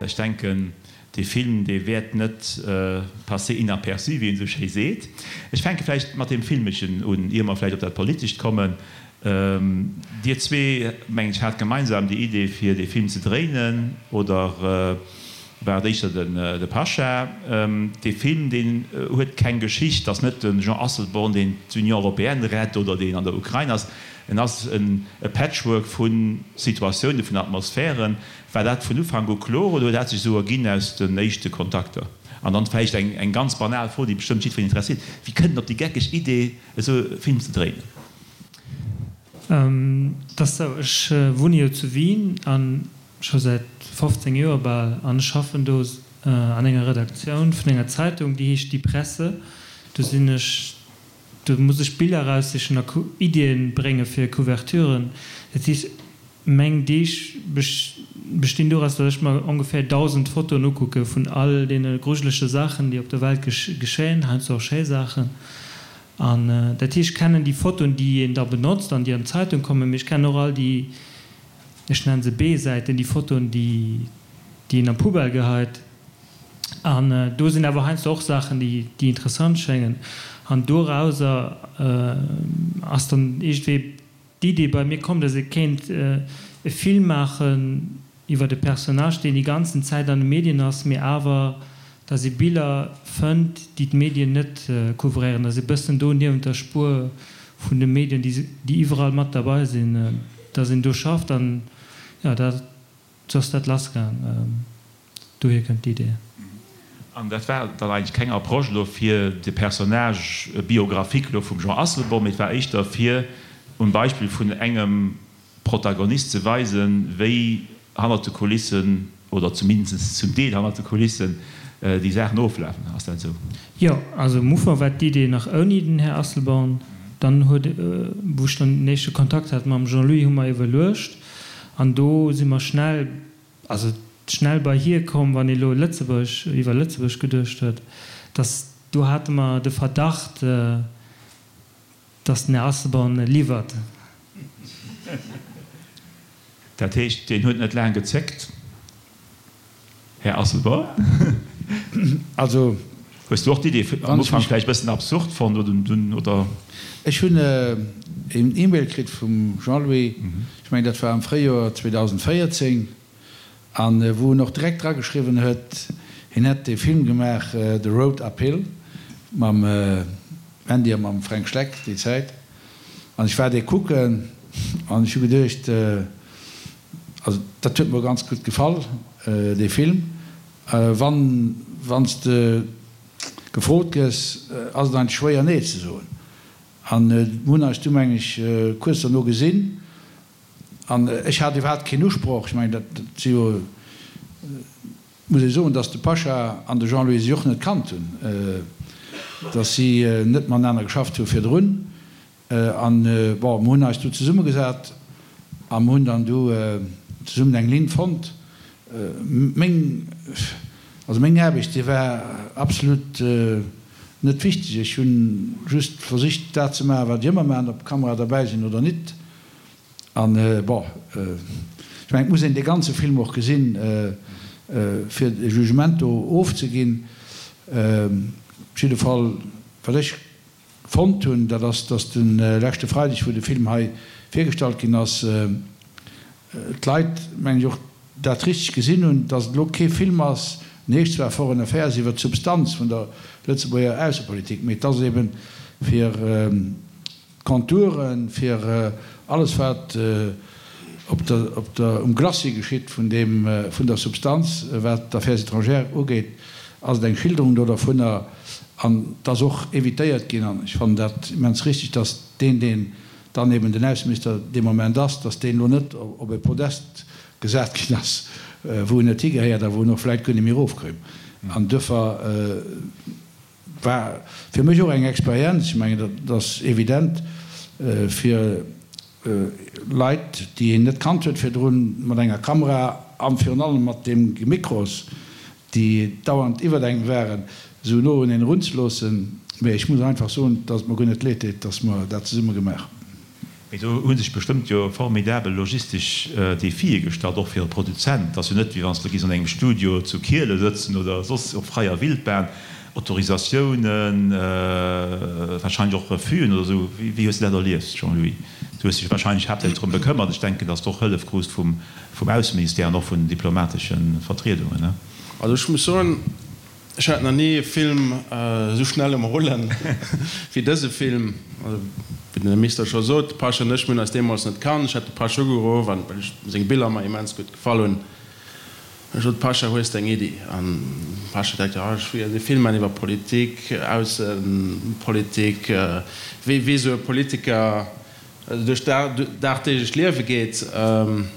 Ech denken, dee Film, dee wäert net passer inaperçu, wéi een esou schéi seet. Ech fänke vläicht mat deem Filmeschen un, ier mer vläicht op dat Politescht kommen. Dir zwee, mengen ech, hat gemeinsam déi Idee, fir dee Film ze dréinen, oder war et éischter de Pasha? Dee Film, deen huet keng Geschicht, ass net de Jean Asselborn, deen d'Union européenne rett oder deen an der Ukrain ass. En ass e Patchwork vu Situatiounen, vun Atmosphären. War dat vun Ufank u kloer oder huet dat sech esou erginn aus den éischte Kontakter? An dann vläicht eng ganz banal Fro, déi bestëmmt jiddwereen interesséiert, Wie kënnt en op déi geckeg Idee, esou e Film ze dréinen? Et ass esou, ech wunne jo zu Wien a scho säit 15 Joer bal an ech schaffen do an enger Redaktioun vun enger Zeitung, déi heescht Die Presse. Do sinn ech, do muss ech Biller eraussichen a Iddien brénge fir Couverturen. Dat heescht, Meng Deeg bestinn doraus, datt ech mer ongeféier 1.000 Fotoen ukucke vun all deene grujelege Saachen, déi op der Welt geschéien, heiansdo och schéi Saachen. An dat heescht, ech kennen déi Fotoen, déi een da benotzt an déi an d'Zeitung kommen, mee ech kennen och all déi, ech nennen se B-Säiten, déi Fotoen, déi een an d'Poubelle geheit. An do sinn awer heiansdo och Saachen, déi interessant schéngen. An dorauser ass dann iergendwéi D'Idee bei mir komm, dass ee kéint e Film maachen iwwert e Personnage, deen déi ganzen Zäit an de Medien ass, mee awer dass ee Biller fënnt, déi d'Medien net couvréieren, dass ee bëssen do niewent der Spuer vun de Medien, déi iwwerall mat derbei sinn, dass een do schafft an jo, da sou ass dat lassgaang. Dohier kënnt d'Idee. An dat war dann eigentlech keng Approche elo fir de Personnage biographique elo vum Jean Asselborn, mee et war éischter fir um Beispill vun engem Protagonist ze weisen, wéi hannert de Kulissen, oder zumindest zum Deel hannert de Kulissen, déi Saachen oflafen. Ass dat esou? Jo, also am Ufank war d'Idee nach ouni den Här Asselborn. Dann huet, wou ech dann den éischte Kontakt hat mam Jean-Louis, hu mer iwwerluecht an do si mer schnell, Also schnell bei hie komm, wann ee lo Lëtzebuerg, iwwer Lëtzebuerg geduecht huet, dass do hate mer de Verdacht, dass den Här Asselborn liwwert. Dat heescht, deen huet net laang gezéckt, Här Asselborn? Also. Hues du och d'Idee am Ufank vläicht e bëssen absurd fonnt oder dunn, oder? Ech hunn een E-Mail kritt vum Jean-Louis, ech mengen dat war am Fréijoer 2014, a wou en och direkt drageschriwwen huet, hien hätt dee Film gemaach The Road Uphill mam Mandy a mam Fränk Schleck déi Zäit. An ech war dee kucken an ech hu geduecht, also dat huet mer ganz gutt gefall, dee Film. Wann wann s de gefrot gëss, ass et eigentlech schwéier nee ze soen. An mir hunn eis du meng ech kuerz derno gesinn an ech hat iwwerhaapt keen Usproch. Ech mengen dat si jo, muss ee soen, datt de Pasha an de Jean-Louis sech och net kannt hunn, datt si net matenaner geschafft hu virdrun. An, bon, mer hunn eis du zesummegesat a mer hunn dann du zesummen eng Linn fonnt. Meng, also meng Aarbecht, déi war absolut net wichteg. Ech hu just versicht, dat ze maachen, wat ech ëmmer maachen, ob Kamera derbäi sinn oder nit. An, bon, ech mengen, et muss een dee ganze Film och gesinn, fir e Jugement do ofzeginn. Op jidde Fall, wat ech Fonnt hunn, dat ass, dass de leschte Freideg, wou de Film hei virgestallt ginn ass, d'Leit, mengen ech, och dat richteg gesinn hunn, dass et elo kee Film ass, en heescht zwar Foreign Affairs, iwwert d'Substanz vun der Lëtzebuerger Aussepolitik, mee et ass eeben fir d'Contouren, fir alles wat op der, op der, um Glacis geschitt vun deem, vun der Substanz, wat d'Affaires étrangères ugeet, ass et eng Schilderung do dervunner. An et ass och évitéiert ginn, an ech fannen dat immens richtig, dass deen, deen dann eben den Ausseminister dee Moment ass, dass deen elo net op e Podest gesat ginn ass, wou en net higehéiert a wou en och vläicht guer net méi erofkoum. An duerfir war fir mech och eng Experienz, ech mengen, dat ass evident, fir Leit, déi een net kannt huet virdrun, mat enger Kamera a virun allem mat deem Mikros, déi dauernd iwwert engem waren, esou no un een erunzeloossen. Mee ech muss einfach soen, dass et mer guer net leed deet, dass mer dat zesumme gemaach hunn. Mee do hu sech bestëmmt jo formidabel logistesch Defie gestallt, och fir e Produzent. Et ass jo net, wéi wann s de giss an engem Studio zu Kiele sëtzen oder soss op fräier Wildbahn. Autorisatiounen, wahrscheinlech och Refus'en oder esou. Wéi hues de dat erlieft, Jean-Louis? Du hues dech wahrscheinlech haaptsächlech drëm bekëmmert. Ech denken, datt s de och Hëllef krus vum Ausseministère an och vun den diplomatesche Vertriedungen, ne? Also ech muss soen, Ech hat nach ni e Film esou schnell um Rullen wéi dëse Film. Also, wéi den Här Minister scho sot, de Pasch an ech, mir hunn eis deemools net kannt. Ech hat de Pasch ugeruff, an well ech seng Biller mer immens gutt gefall hunn. Ech sot, Pascha, hues de eng Iddi? An de Pascha direkt, Jo, ech wéilt e Film maachen iwwer Politik, Aussepolitik, wéi wéi esou e Politiker duerch d'dagdeeglecht Liewe geet. Ech hunn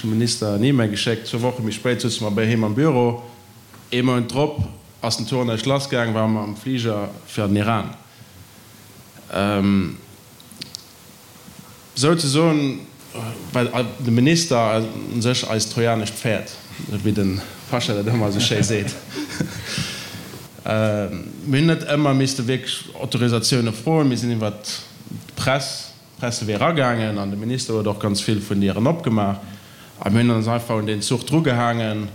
dem Minister en E-Mail geschéckt. Zwou Woche méi spéit souze mer bei him am Büro. Ee Mount drop ass den Tournage lassgaang, ware mer am Fliger fir an den Iran. Souzesoen war de Minister u sech eist trojanescht Pferd, esou wéi de Pascha dat ëmmer esou schéi seet. Mir hunn net ëmmer misste wierklech Autorisatioune froen, mir sinn iwwer d'Press D'Presse wier eragaangen an de Minister huet och ganz vill vun Dieren opgemaach a mir hunn ons einfach un deen Zuch drugehaangen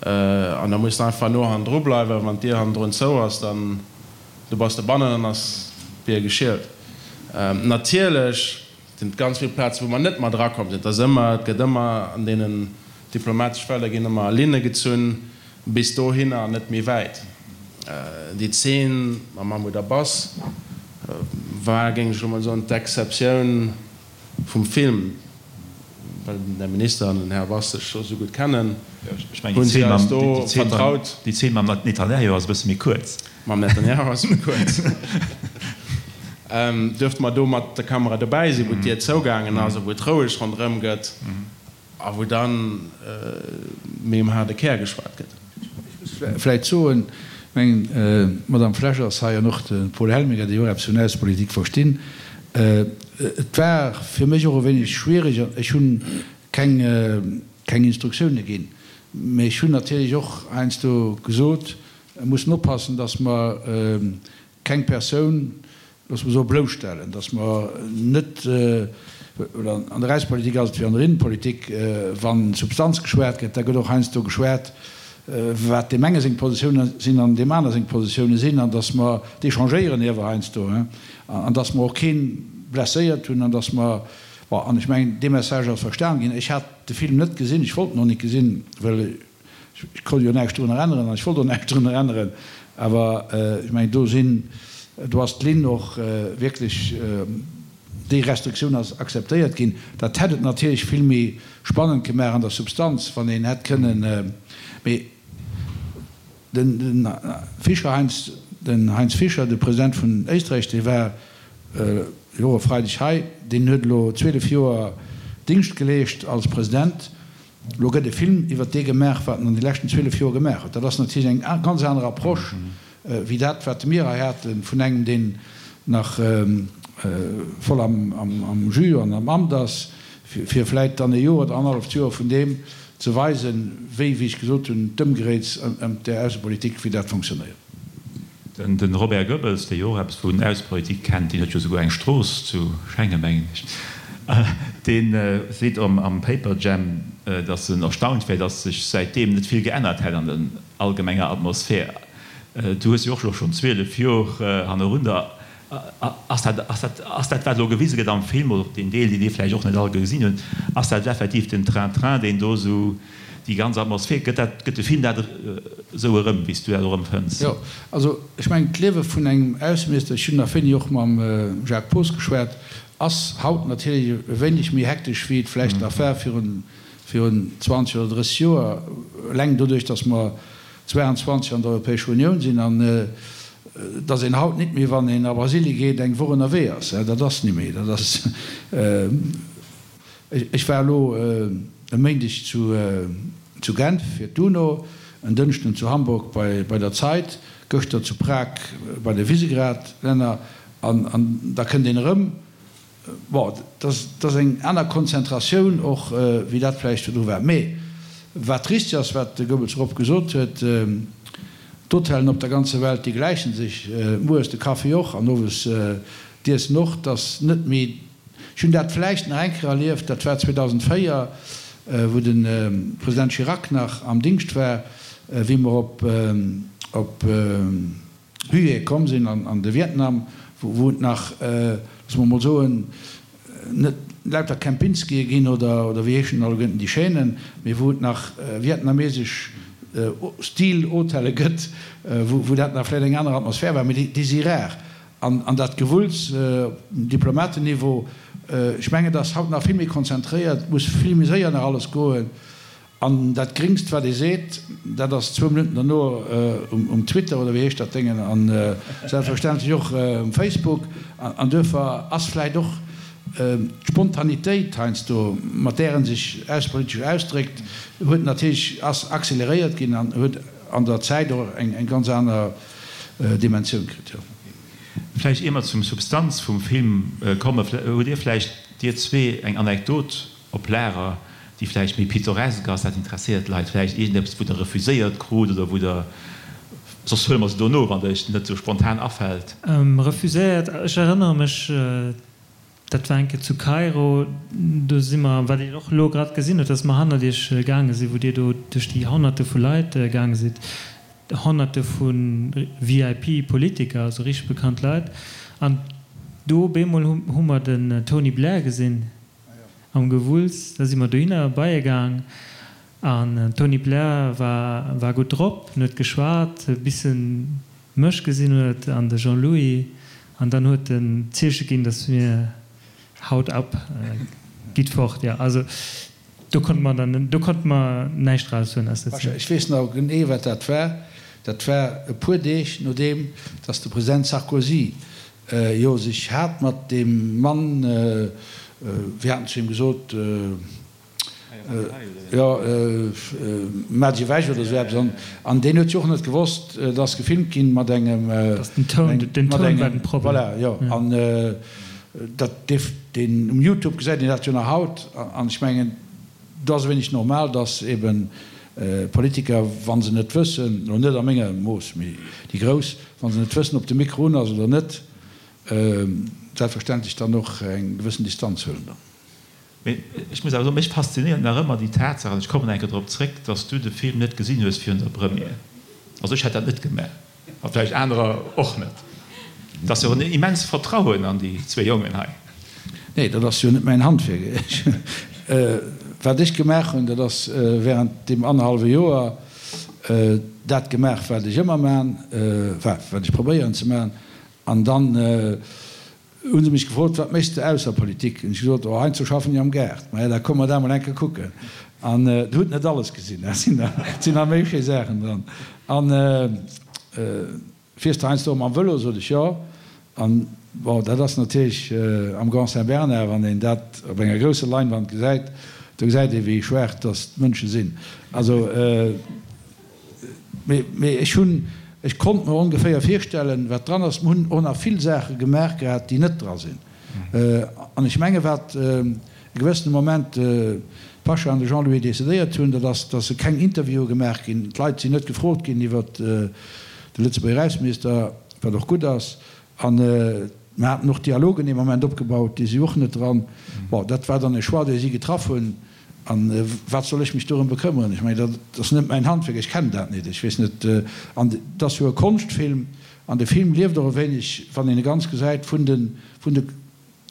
an da muss de einfach no hannendru bleiwen. Wann d'Dier hannendrun zou ass, dann du bass de bannen an ass d'Bier geschielt. Natierlech sinn et ganz vill Plazen, wou mer net mat erakomm sinn. Et ass ëmmer, et gëtt ëmmer an deenen diplomatesch Felder ginn ëmmer Linne gezunn bis dohinner an net méi wäit. Déi Zeen mam Mahmoud Abbas war, géing ech elo mol soen, d'Exceptioun vum Film, well den Här Minister an den Här Abbas sech scho sou gutt kennen, hunn si eis do vertraut. Déi Zeen mam Netanjahu ass e bësse méi kuerz. Mam Netanjahu ass méi kuerz. Duerfte mer do mat der Kamera dobäi sinn, wou d'Dier zougaangen ass a wou et roueg ronderëm gëtt. A wou dann méi um haarde Kär geschwat gëtt. Ech muss vläicht soen, ech mengen, d'Madame Flesch ass hei an och de Paul Helminger, déi och eppes vun Aussepolitik verstinn. Et war fir mech och e wéineg schwierig, an ech hu keng, keng Instruktioune ginn, mä ech hunn natierlech och heiansdo gesot, mer mussen oppassen, datt mer keng Persoun, loosse mer soen, blousstellen, datt mer net, oder an der Aussepolitik ass et wéi an der Innenpolitik, wa Substanz geschwat gëtt, da gëtt och heiansdo geschwat, wat deem enge seng Positioune sinn an deem aner seng Positioune sinn, an datt mer d'échangéieren iewer heiansdo, an datt mer och kee blesséiert hunn, an datt mer, bon, an ech mengen, dee Message ass verstan ginn. Ech hat de Film net gesinn, ech wollt en och net gesinn, well Ech konnt jo näischt drunner änneren an ech wollt och näischt drunner änneren, awer ech mengen, do sinn, do ass d'Linn och wierklech, déi Restriktioun ass akzeptéiert ginn. Dat hätt et natierlech vill méi spannend gemaach an der Substanz, wann een hätt kënnen, mee den Fischer Heinz, den Heinz Fischer, de President vun Éisträich, dee war jo e Freideg hei, deen huet elo 12 Joer Dingscht geleescht als President. Elo gëtt e Film iwwert dee gemaach, wat en an de leschten 12 Joer gemaach huet. Dat ass natierlech eng ganz aner Approche wéi dat, wat mir hei hate vun engem, deen nach voll am Jus an am Amt ass, fir vläit dann e Joer oder annerhalleft Joer vun deem ze weisen, wéi, wéi ech gesot hunn, d'Ëmgeréits ëm där Aussepolitik, wéi dat fonctionnéiert. Den Robert Goebbels, dee jo och eppes vun Aussepolitik kennt, deen huet jo souguer eng Strooss zu Schengen, mengen ech, dee seet am Paperjam, datt en erstaunt wär, datt sech säitdeem net vill geännert hätt an der allgemenger Atmosphär. Du hues jo och elo schonn 12 Jor hannerunder. Ass dat, ass dat, ass dat, wat elo gewise gëtt am Film, oder deen Deel, deen dir vläicht och net all gesinn hunn, ass dat effektiv den Train-Train, deen do esou déi ganz Atmosphär, gëtt dat, gëtt de Film dat esou erëm, wéi s du dat och empfënns? Jo, also ech mengen, d'Liewe vun engem Ausseminister, ech hunn nach wéini och mam Jacques Poos geschwat, ass haut natierlech e wéineg méi hektesch, wéi et vläicht nach war virun, virun 20 oder 30 Joer, eleng doduerch, datt mer 22 an der Europäescher Unioun sinn an datt een haut nit méi, wann een a Brasilie geet, eng Woch ënnerwee ass. Dat ass ni méi. Dat ass, ech war elo e Méindeg zu Genf fir d'UNO, en Dënschden zu Hamburg bei der Zeit, gëschter zu Prag bei de Visegrad-Länner an da kënnt een erëm. Bon, dat ass eng aner Konzentratioun och, wéi dat vläicht virdru war. Mee wat richtig ass, wat de Goebbels Rob gesot huet, D'Hotellen op der ganzer Welt, déi gläiche sech, mueres de Kaffi och an owes d'Iessen och. Et ass net méi, ech Ech hunn dat vläicht nach eng Kéier erlieft, dat war 2004, wou de President Chirac nach am Dingscht war, wéi mer op, op Hué komm sinn an de Vietnam, wou et nach, loosse mer emol soen, net lauter Kempinskië ginn oder wéi heeschen alleguerten déi Chaînen, mee wou et nach vietnamesesch Stil-Hotelle gëtt, wou dat nach vläicht eng aner Atmosphär war, mee déi si rar. An dat Gewulls op Diplomatenniveau, ech mengen, et ass haut nach vill méi konzentréiert, et muss vill méi séier nach alles goen. An dat Gréngst, wat ee seet, dat ass zwou Minutten derno um Twitter, oder wéi heescht dat Déngen, a selbstverständlech och um Facebook. An duerfir ass vläicht och d'Spontanitéit heiansdo, mat där e sech aussepolitesch ausdréckt, huet natierlech, ass acceleréiert ginn an huet an der Zäit och eng ganz aner Dimensioun kritt, jo. Vläicht ier mer zum Substanz vum Film kommen, hutt Dir vläicht, Dir zwee, eng Anekdot op Lager, déi vläicht méi pittoresk ass, dat interesséiert d'Leit vläicht, iergendeppes, wou Der refuséiert krut oder wou Der, soss huele mer se dono, wann der Iech net esou spontan afält. Refuséiert, ech erënnere mech, dat war eng Kéier zu Kairo, do si mer, wat een och elo grad gesinn huet, dass mer hannert Iech gaange sinn, wou Dir do duerch déi Honnerte vu Leit gaange sidd, Honnerte vu VIP-Politiker, also richteg bekannt Leit, an do op eemol hu mer den Tony Blair gesinn. Am Gewulls, da si mer dohinner bei e gaang an den Tony Blair war war gutt drop, en huet geschwat, bis en mech gesinn huet an de Jean-Louis an dann huet en d'Zeeche ginn, datt mir haut ab, gitt fort. Jo, also do konnte mer dann, do konnte mer näischt raushuelen aus der Zeen. Ech weess nach genee wat dat war. Dat war e puer Deeg nodeem datt de President Sarkozy jo sech hat mat deem Mann, wéi hat en zu him gesot, jo, maach dech ewech oder esou eppes, an deen huet jo och net gewosst, et ass gefilmt ginn mat engem, den Toun, den Toun war den Problem. Voilà, jo, an dat dierf een, um Youtube gesäit een dat jo nach haut, an ech mengen, do ass e wéineg normal, datt eben Politiker, wa se net wëssen, elo net a menger Mooss, mee déi Grouss, wa se net wëssen, ob de Mikro un ass oder net, selbstverständlech dann och eng gewëssen Distanz huelen dann. Mee ech muss awer soen, mech faszinéiert nach ëmmer déi Tatsaach, an ech kommen eng Kéier drop zréck, datt s du de Film net gesinn hues virun der Première. Also ech hätt dat net gemaach. A vläicht anerer och net. Et ass jo en immenst Vertrauen an déi zwéi Jongen hei. Nee, dat ass jo net mäin Handwierk. Wat ech gemaach hunn, dat ass während deem annerhallwe Joer dat gemaach, wat ech ëmmer man, enfin, wat ech probéieren ze man. An dann Hu se mech gefrot, Wat méchs de ausser Politik? Hunn ech gesot, Oh, heiansdo schaffen ech am Gaart. Maja, da komm mer dat mol eng Kéier kucken. An der hutt net alles gesinn, et sinn nach méi schéi Saachen dran. An fiers de heiansdo och mam Vëlo? Sot ech, Jo. An bon, dat ass natierlech am Grand Saint-Bernard, wann een dat op enger grousser Leinwand gesäit, do gesäit ee wéi schwaach dass d'Mënsche sinn. Also. Mee ech hunn, ech konnt mer ongeféier virstellen, wat dran ass. Mer hunn och nach vill Saache gemaach gehat, déi net dra sinn. An ech menge wat e gewëssene Moment d'Pasha an de Jean-Louis decidéiert hunn, dat ass, datt keng Interviewe gemaach ginn. D'Leit sinn net gefrot ginn iwwert de Lëtzebuerger Ausseminister, wat och gutt ass. An mer haten och Dialogen ee Moment opgebaut, déi si och net dran. Bon, dat war dann e Choix, dee si getraff hunn. A wat soll ech mech dorëm bekëmmeren? Ech mengen, dat ass net mäin Handwierk, ech kennen dat net, ech weess net. An et ass jo e Konschtfilm, an de Film lieft och e wéineg, wann een e ganz gesäit, vun de, vun de,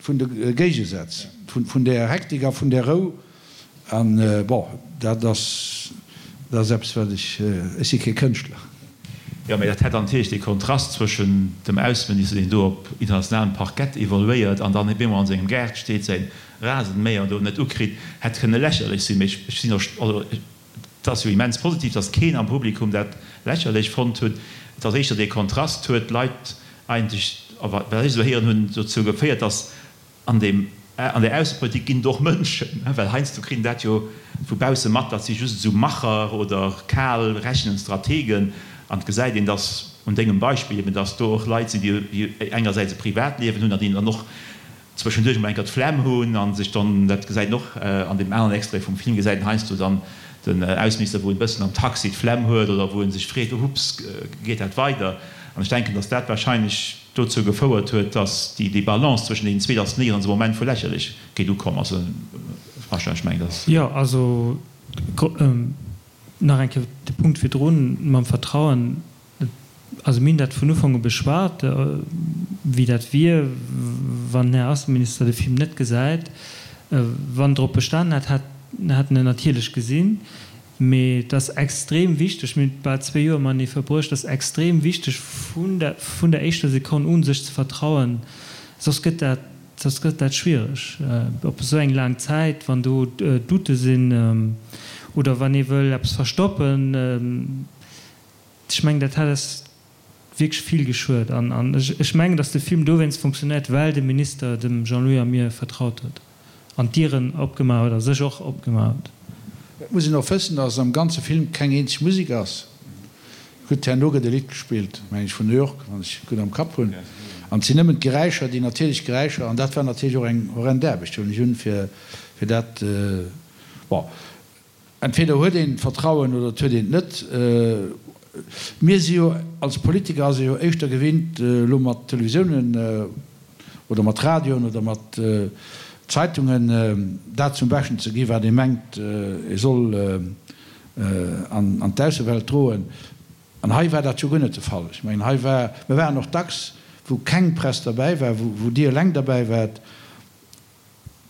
vun de Géigesätz, vun, vun där Hektik a vun där Rou. An, bon, dat ass, dat ass eppes, wat ech, ech si kee Kënschtler. Jo, mä dat hätt dann natierlech dee Kontrast zwëschen dem Ausseminister, deen do op internationalem Parkett evoluéiert an dann op eemol an sengem Gaart steet, säin Rasenmäher do net ukritt, hätt kënne lächerlech sinn. Mee ech sinn och, also et ass jo immens positiv, datt keen am Publikum dat lächerlech fonnt huet. Et ass éischter dee Kontrast huet d'Leit eigentlech, a wat ech esou héieren hunn, dozou geféiert, datt an deem, an där Aussepolitik ginn et och Mënschen, well heiansdo kritt een dat jo vu bausse mat, dat si just esou Macher oder kal rechnend Strategen. An et gesäit een, datt un dengem Beispill eben, datt do och Leit sinn, déi engersäits e Privatliewen hunn an déi dann och zwëschenduerch emol eng Kéier d'Flemm hunn a sech dann, dat gesäit een och an deem aneren Extrait vum Film, gesäit een heiansdo dann den Ausseminister, wou en e bëssen am Taxi d'Flemm huet oder wou en sech freet, Hups, geet dat weider? An ech denken, datt dat wahrscheinlech dozou gefouert huet, datt déi Balance zwëschen deenen zwee, datt néierens e Moment vu Lächerlechkeet ukomm ass. Franchement, ech mengen, datt. Jo, also nach eng Kéier de Punkt virdrun mam Vertrauen. Also mir hunn dat vun Ufank u beschwat, wéi dat wier, wann den Här Ausseminister de Film net gesäit. Wann en drop bestanen hätt, hätt en en natierlech gesinn. Mee et ass extrem wichteg, mir hunn bal zwee Joer matenee verbruecht, et ass extrem wichteg vun der vun der éischter Sekonn u sech ze vertrauen, soss gëtt dat soss gëtt dat schwiereg op esou eng laang Zäit, wann do Doute sinn oder wann ee wëll eppes verstoppen. Ech mengen, dat hätt eis wierklech vill geschuet. An ech mengen, datt de Film dowéinst funktionéiert, well de Minister dem Jean-Louis a mir vertraut huet an d'Dieren opgemaach huet a sech och opgemaach huet. Et muss een och wëssen, datt am ganze Film keng eenzeg Musek ass. Gutt, herno gëtt e Lidd gespillt, meng ech, vun New York, wann ech et gutt am Kapp hunn. An et sinn nëmmen d'Geräischer, déi natierlech Geräischer. An dat war natierlech och eng horrend Aarbecht, huelen ech un, fir dat, bon. Entweder huet een d'Vertrauen oder et huet een et net. Mir si jo, als Politiker ass ee jo éischter gewinnt, elo mat Televisiounen oder mat Radioen oder mat Zeitungen dat zum Beschten ze gi wat ee mengt, ee soll an d'Aussewelt droen. An hei war dat jo guer net de Fall. Ech mengen, hei war, mir waren och dacks, wou keng Press derbäi war, wou Dir eleng derbäi waart.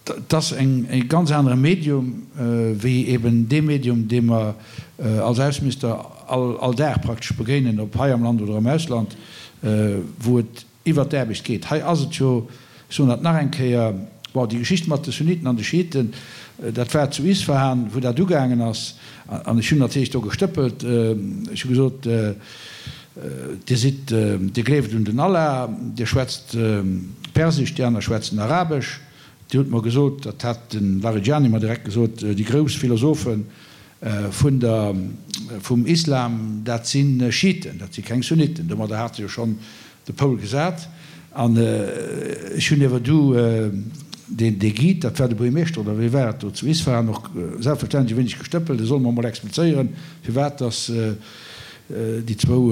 Et ass e ganz anere Medium wéi eben dee Medium, dee mer als Ausseminister all Dag praktesch begéinen, ob hei am Land oder am Ausland, wou et iwwert d'Aarbecht geet. Hei ass et jo, ech soen dat nach eng Kéier, bon, déi Geschicht mat de Sunniten an de Schiiten, dat war zu Isfahan, wou dat ugaangen ass, an ech hunn natierlech do gestëppelt, ech hu gesot, Dir sidd, Dir gleeft un den Allah, Dir schwätzt Persesch, déi aner schwätzen Arabesch. Dir hutt mer gesot, dat hat de Larijani mer direkt gesot, déi grouss Philosophe vun der, vum Islam, dat si Schiiten, dat si keng Sunniten. Domadder hat e jo schonn de Poul gesat. An ech hunn iewer du deen, dee Guide, dat war de Buergermeeschter oder wee war et do zu Isfahan, och selbstverständlech e wéineg gestëppelt, e soll mer emol explizéieren, firwat dass déi zwou,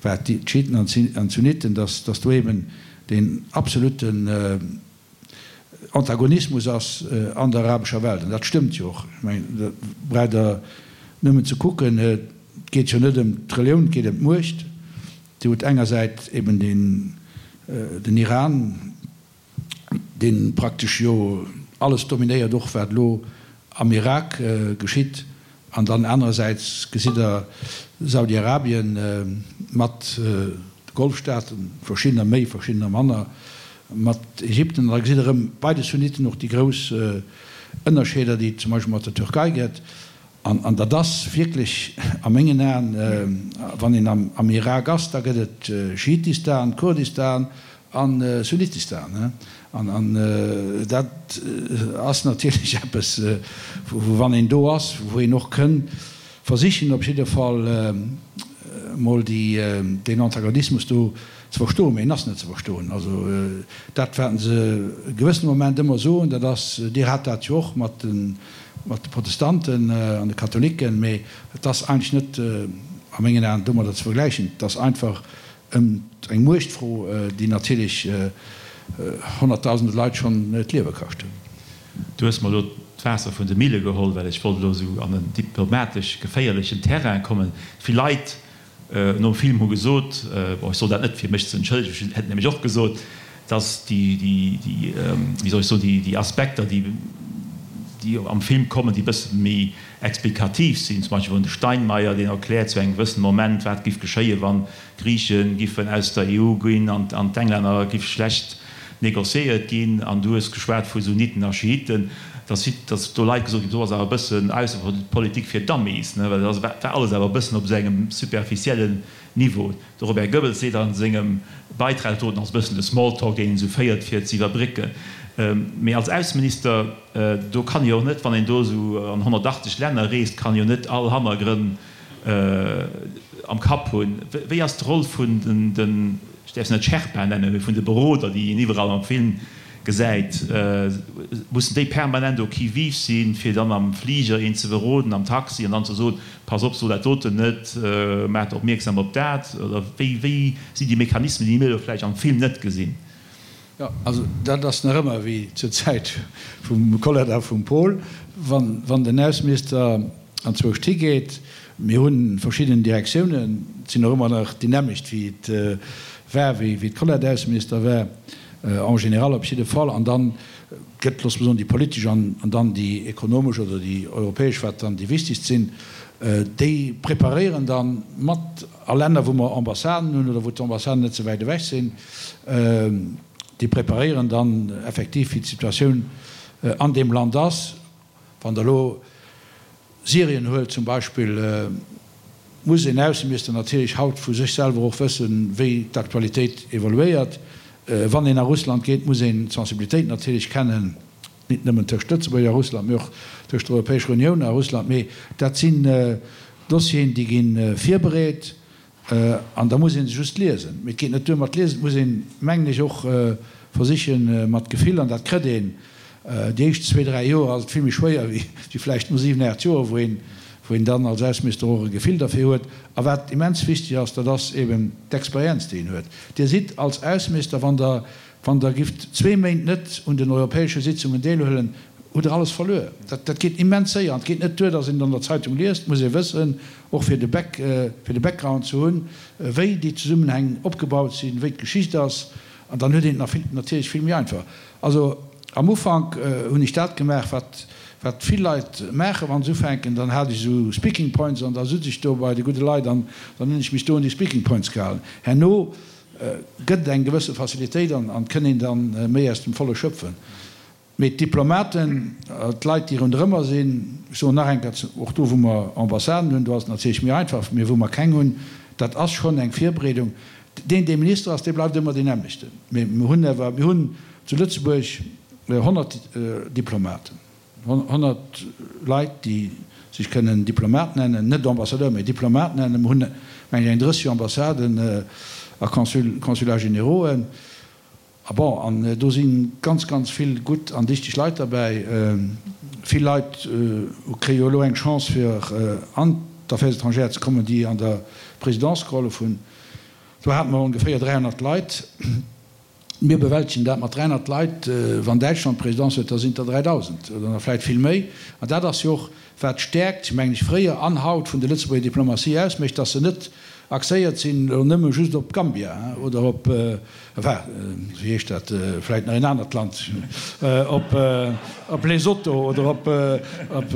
wat d'Schiiten an d'Sunniten, dass dass do eben deen absoluten Antagonismus ass an der arabescher Welt. An dat stëmmt jo och. Ech mengen, da braucht Der nëmmen ze kucken, et geet jo net ëm d'Relioun, et geet ëm d'Muecht. Dir hutt engersäits eben den den Iran, dee praktesch jo alles dominéiert, och wat elo am Irak geschitt, an dann anerersäits gesitt Der Saudi-Arabien mat de Golfstaaten, verschiddener méi, verschiddener manner, mat Ägypten, an da gesitt Der erëm bei de Sunniten och déi grouss Ënnerscheeder, déi et zum Beispill mat der Türkei gëtt. An dat ass wierklech a mengen Aen, wann een am Irak ass, da gëtt et Schiitistan, Kurdistan a Sunnitistan. An dat ass natierlech eppes, wou wann een do ass, wou een och kënn versichen op jidde Fall emol deen Antagonismus do ze verstoen. Mee en ass net ze verstoen. Also dat, wat se e gewëssene Moment ëmmer soen, dat ass, Dir hat dat jo och mat den, mat de Protestanten an de Katholiken, mee et ass eigentlech net a mengen Aen domadder ze vergläichen. Et ass einfach eng Muechtfro, déi natierlech honnertdausende Leit schonn d'Liewe kascht huet. Du hues mer elo d'Waasser vun de Mille geholl, well ech wollt elo esou an en diplomatesch geféierlechen Terrain kommen. Vill Leit nom Film hu gesot, bon, ech soll dat net fir mech ze entschëllegen, ech hätt nämlech och gesot, dass déi, déi, wéi soll ech soen, déi, déi Aspekter, déi, déi am Film kommen, déi e bësse méi explikativ sinn, zum Beispill vun de Steinmeier, deen erkläert zu engem gewëssene Moment, wat giff geschéien, wann d'Griiche giffen aus der EU ginn an d'Englänner giff schlecht négociéiert ginn, an du hues geschwat vu Sunniten a Schiiten, dass dass do Leit gesot ginn, do ass awer e bëssen Aussepolitik fir Dummies, ne, well dat war alles awer e bëssen op esou engem superficiellen Niveau. De Robert Goebbels seet a sengem Beitrag do, et ass e bëssen de Smalltalk, deen een esou féiert, fir ze iwwerbrécken. Mee als Ausseminister, do kann ee jo och net, wann een do esou an 180 Länner reest, kann ee jo net all Hannergrënn am Kapp hunn. Wéi ass d'Roll vun den, ech däerf se net Sherpa nennen, mee vun de Beroder, déi een iwwerall am Film. Gesäit, mussen déi permanent au qui-vive sinn, fir dann am Fliger een ze beroden, am Taxi, an dann ze soen, Pass op, so dat doten net, maacht opmierksam op dat? Oder wéi, wéi sinn déi Mechanismen, déi mir elo vläicht am Film net gesinn? Jo, also dat ass nach ëmmer wéi zur Zäit vum Colette a vum Paul, wann, wann den Ausseminister anzwousch higeet. Mir hu verschidden Direktiounen, et sinn och ëmmer nach déi nämmlecht wéi et war, wéi d'Colette Ausseminister war. En général op jidde Fall. An dann gëtt, loosse mer soen, déi politesch an dann déi ekonomesch oder déi europäesch, wat dann déi wichtegst sinn, déi preparéieren dann mat a Länner, wou mer Ambassaden hunn oder wou d'Ambassaden net ze wäit ewech sinn, déi preparéieren dann effektiv, wéi d'Situatioun an deem Land ass. Wann Der elo Syrien huelt zum Beispill, muss een Ausseminister natierlech haut vu sech selwer och wëssen, wéi d'Aktualitéit evoluéiert. Wann een a Russland geet, muss een d'Sensibilitéit natierlech kennen, nit nëmmen tëscht Lëtzebuerg a Russland, mee och tëscht der Europäescher Unioun a Russland. Mee dat sinn Dossieren, déi gi virbereet. An da muss ee se just liesen. Mee et geet net duer mat liesen, et muss een, mengen ech, och versichen mat Gefill, an dat kritt een déi éischt zwee, dräi Joer ass et vill méi schwéier wéi vläicht no siwen, aacht Joer, wou een, wou een dann als Ausseminister och e Gefill derfir huet. A wat immens wichteg ass, dat ass eben d'Experienz, déi een huet. Dir sidd als Ausseminister, wann Der, wann Der gifft zwee Méint net un den europäesche Sitzungen deelhuelen, hutt Der alles verluer. Dat, dat geet immens séier an et geet net duer, datt een et an der Zeitung liest, et muss ee wëssen, och fir de Back, fir de Background ze hunn, wéi déi Zesummenhäng opgebaut sinn, wéi d'Geschicht ass, an dann huet een et nach vill, natierlech vill méi einfach. Also am Ufank hunn ech dat gemaach, wat, wat vill Leit maachen, wa se ufänken, dann hat ech esou Speaking Points an da sutz ech do bei de gudde Leit an dann hunn ech mech do un déi Speaking Points gehalen. Herno gëtt et eng gewësse Facilitéit an an kënn een dann méi aus dem Volle schöpfen. Mee d'Diplomaten, d'Leit, déi ronderëmmer sinn, ech soen nach eng Kéier, och do wou mer Ambassaden hunn, do ass et natierlech méi einfach, mee wou mer keng hunn, dat ass schonn eng Virbereedung. Deen, dee Minister ass, dee bleift ëmmer deen nämmlechten. Mee mir hunn awer, mir hunn zu Lëtzebuerg 100 Diplomaten, 100 Leit, déi sech kënnen Diplomat nennen, net Ambassadeur, mee Diplomat nennen. Mir hunn, meng ech, eng 30 Ambassaden a Consulats générauxen. A bon, an do si ganz, ganz vill gutt an dichteg Leit derbäi. Vill Leit kréie jo elo eng Chance, fir an d'Affaires étrangères ze kommen, déi an der Présidence gehollef hunn. Do hate mer ongeféier 300 Leit. Mir bewältegen dat mat 300 Leit. Wann Däitschland d'Présidence huet, da sinn et der 3.000 oder nach vläicht vill méi. An dat ass jo och, wat d'Stäerkt, mengen ech, fréier an haut vun der Lëtzebuerger Diplomatie ausmécht, dass se net axéiert sinn elo nëmme just op Gambia oder op, enfin, wéi heescht dat, vläicht nach een anert Land, op, op Lesotho oder op, op,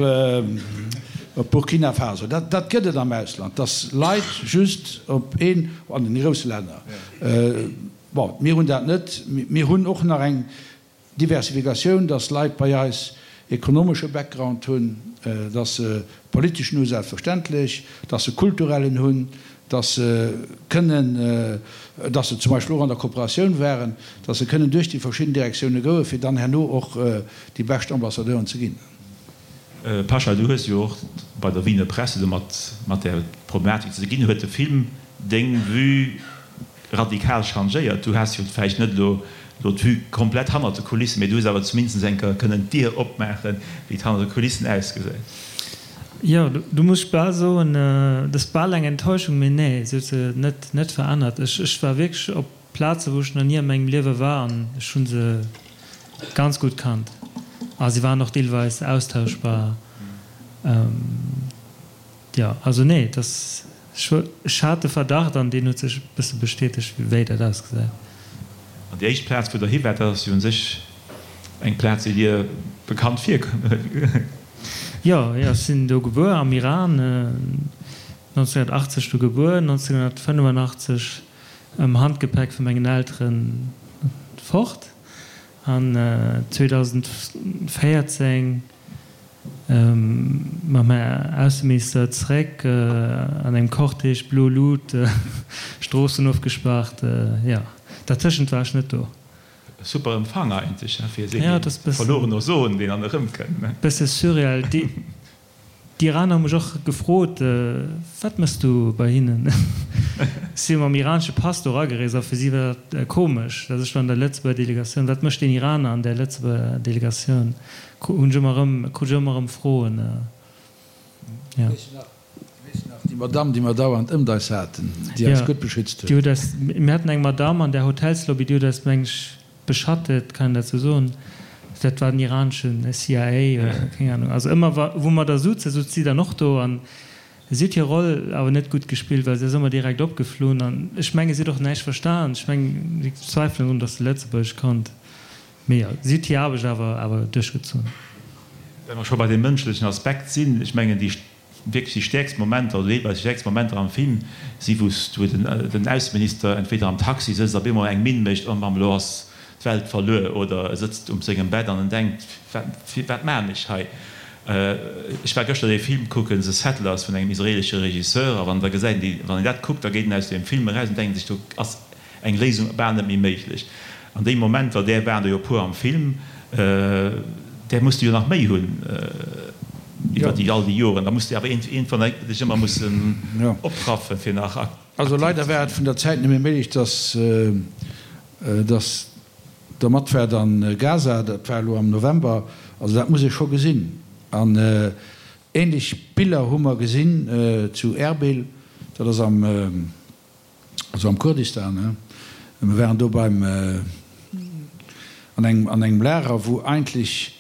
op Burkina Faso. Dat, dat gëtt et am Ausland, dass Leit just op een, an den grousse Länner, bon, mir hunn dat net. Mir hunn och nach eng Diversifikatioun, dass Leit bei eis ekonomesche Background hunn, dass se politeschen hu selbstverständlech, dass se kulturellen hunn, dass se kënnen, dass se zum Beispill och an der Kooperatioun waren, dass se kënnen duerch déi verschidden Direktioune goen, fir dann herno och déi bescht Ambassadeuren ze ginn. Pasha, du hues jo och bei der Wiener Presse domat mat där Problematik ze ginn. Huet de Film deng Vue radikal changéiert? Du has jo vläicht net elo elo d'Vue komplett hannert de Kulissen, mee du hues awer zumindest eng Kéier kënnen d'Dier opmaachen, wéi et hannert de Kulissen ausgesäit. Jo, do muss ech bal soen, dat ass bal eng Enttäuschung, mee nee, se huet se net net verännert. Ech ech war wierklech op Plaze wou ech nach ni a mengem Liewe war an ech hu se ganz gutt kannt a se waren och deelweis austauschbar. Jo, also nee, et ass, ech hat de Verdacht an deen huet sech e bësse bestätegt, wéi dat ausgesäit. An déi éischt Plaz, wou Der hi waart, dat ass jo u sech eng Plaz, déi Dir bekannt virkënnt. Jo, jo, ech sinn do gebuer, am Iran, 1980 do gebuer, 1985 am Handgepäck vu mengen Elteren fort an 2014 mam Här Ausseminister zréck an engem Cortège, blo Lut, Stroossen ofgespaart, jo, dertëschent war ech net do. Super Empfang eigentlech fir esou ee verlorene Sohn, deen dann erëmkënnt. Bësse surreal. D'Iraner hu mech och gefrot, Wat mëss du bei hinnen? Ech si jo mam iranesche Pass do eragereest a fir si war dat komesch, datt ech do an der Lëtzebuerger Delegatioun, wat mécht deen Iraner an där Lëtzebuerger Delegatioun, hunn ech ëmmer erëm, krut ech ëmmer erëm Froen. Jo. Weess de nach, déi Madamm, déi mer dauernd ëmt eis haten, déi eis gutt beschützt huet? Déi huet eis, mir haten eng Madamm an där Hotelslobby, déi huet eis, meng ech, beschattet, kann een dat sou soen? Dat war den iraneschen CIA oder keng Ahnung. Also ëmmer wa wou mer da souzen, souz si dann och do an si huet hir Roll awer net gutt gespillt, well si ass ëmmer direkt opgeflunn an ech menge si huet och näischt verstan. Ech mengen, ech zweifelen drun, datt se Lëtzebuergesch konnt. Mee jo, si huet hir Aarbecht awer awer duerchgezunn. Well mer scho bei deem mënschlechen Aspekt sinn, ech mengen déi wierklech déi stäerkst Momenter oder deelweis déi stäerkst Momenter am Film si wou s wou den den Ausseminister entweder am Taxi sëtzt a bemol eng Minn mécht, oh Mamm, elo ass d'Welt verluer, oder e sëtzt um sengem Bett an en denkt, wat wat maachen ech hei? Ech war gëschter dee Film kucken, The Settlers vun engem israelesche Regisseur, a wann da gesäit een déi, wann een dat kuckt, da geet een aus deem Film eraus an denkt sech, do ass eng Léisung bal net méi méiglech. An deem Moment, well där waren der jo e puer am Film, där muss de jo nach méi hunn iwwer déi all déi Joren. Da muss de awer iergendwann dech ëmmer mussen opraffen, fir nach aktiv ze sinn. Also leider war et vun der Zäit net méi méiglech, dass dass der mat waart an Gaza. Dat war elo am November. Also dat muss ee scho gesinn. An ähnlech Biller hu mer gesinn zu Erbil, dat ass am. also am Kurdistan, he, mir waren do beim, an engem, an engem Lager, wou eigentlech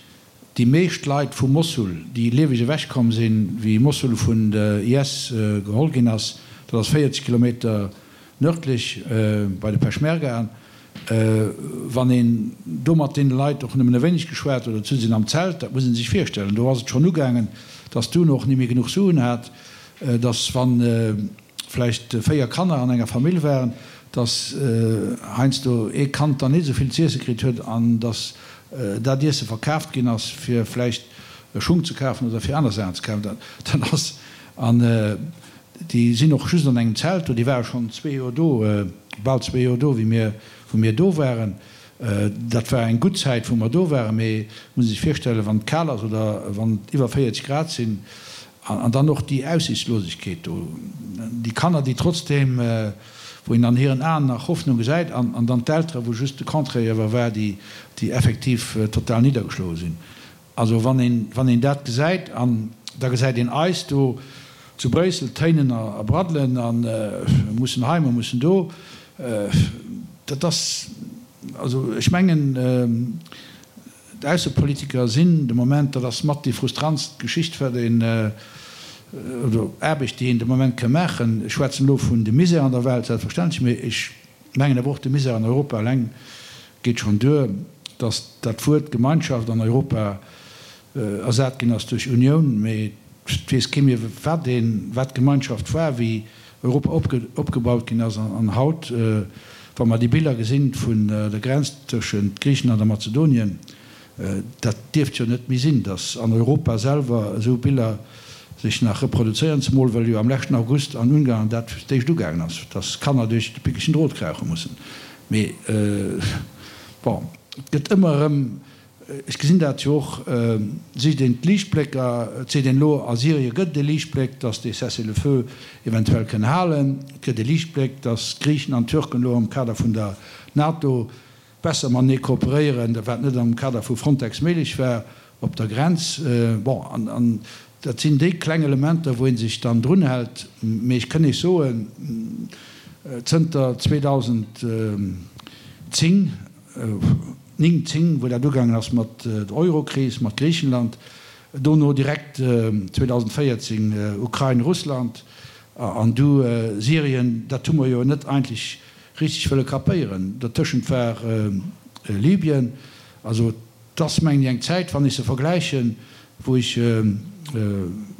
déi meescht Leit vu Mossul, déi lieweg ewech komm sinn, wéi Mossul vun de IS geholl ginn ass, dat ass 40 Kilometer nördlech bei de Peschmergaen, wann een do mat deene Leit och nëmmen e wéineg geschwat huet, oder zu sinn am Zelt, dat muss ee sech virstellen, do ass et schonn ugaangen, dass d'UNO och ni méi genuch Suen hat, dass wann vläicht 4 Kanner an enger Famill waren, dass heiansdo ee Kand dann net esou vill z'iesse kritt huet an dass dat Iesse verkaaft ginn ass, fir vläicht Schung ze kafen oder fir aner Saachen ze kafen. Dat ass, an déi sinn och just an engem Zelt do, déi ware schonn zwee Joer do, bal zwee Joer do, wéi mir, wou mir do waren. Dat war eng gutt Zäit, wou mer do waren, mee et muss ee sech virstellen, wann et kal ass oder wann et iwwer 40 Grad sinn, An dann och déi Aussichtslosegkeet do, déi Kanner, déi trotzdeem, wou een an hiren Aen nach Hoffnung gesäit, an dann d'Elteren, wou just de Contraire iewer war, déi effektiv total niddergeschloe sinn. Also wann een, wann een dat gesäit, an da gesäit een eis do zu Bréissel téinen a braddelen a mussen hei, mer mussen do, dat ass, also ech mengen, D'Aussepolitiker sinn de Moment, dat ass mat déi frustrantst Geschicht, wat een, oder Aarbecht, déi een de Moment ka maachen. Ech schwätzen elo vun dem Misär an der Welt, selbstverständlech, mee ech mengen awer och, de Misär an Europa eleng geet schonn duer, datt dat Wuert Gemeinschaft an Europa ersat ginn ass duerch Unioun, mee et weess kee méi, wat een, wat d'Gemeinschaft war, wéi Europa opgebaut ginn ass. An haut, wa mer déi Biller gesinn vun der Grenz tëschent Griichenland a Mazedonien, dat dierft jo net méi sinn, datt an Europa selwer esou Biller sech nach reproduzéieren, zemol well jo am leschten August an Ungarn dat fir d'éischt ugaangen ass, datt Kanner duerch de pickegen Drot krauche mussen. Mee bon, et gëtt ëmmer erëm Ech gesinn dat jo och, sicht een d'Liichtblécker, et seet een elo, a Syrie gëtt et e Liichtbléck, datt dee Cessez-le-feu eventuell kënn halen. Et gëtt e Liichtbléck, datt d'Griichen an d'Türken elo am Kader vun der NATO besser matenee kooperéieren, wat net am Kader vu Frontex méiglech war op der Grenz. Bon, an dat sinn déi kleng Elementer, wou ee sech dann drunhält. Mee ech kënn Iech soen, zënter 2010, 9, 10, wou dat ugaangen ass mat der Eurokris, mat Griichenland, dono direkt 2014 Ukrain, Russland an du Syrien, dat hu mer jo net eigentlech richteg wëlle kapéieren. Dertëschent war Libyen. Also et ass, mengen ech, eng Zäit, wann ech se vergläichen, wou ech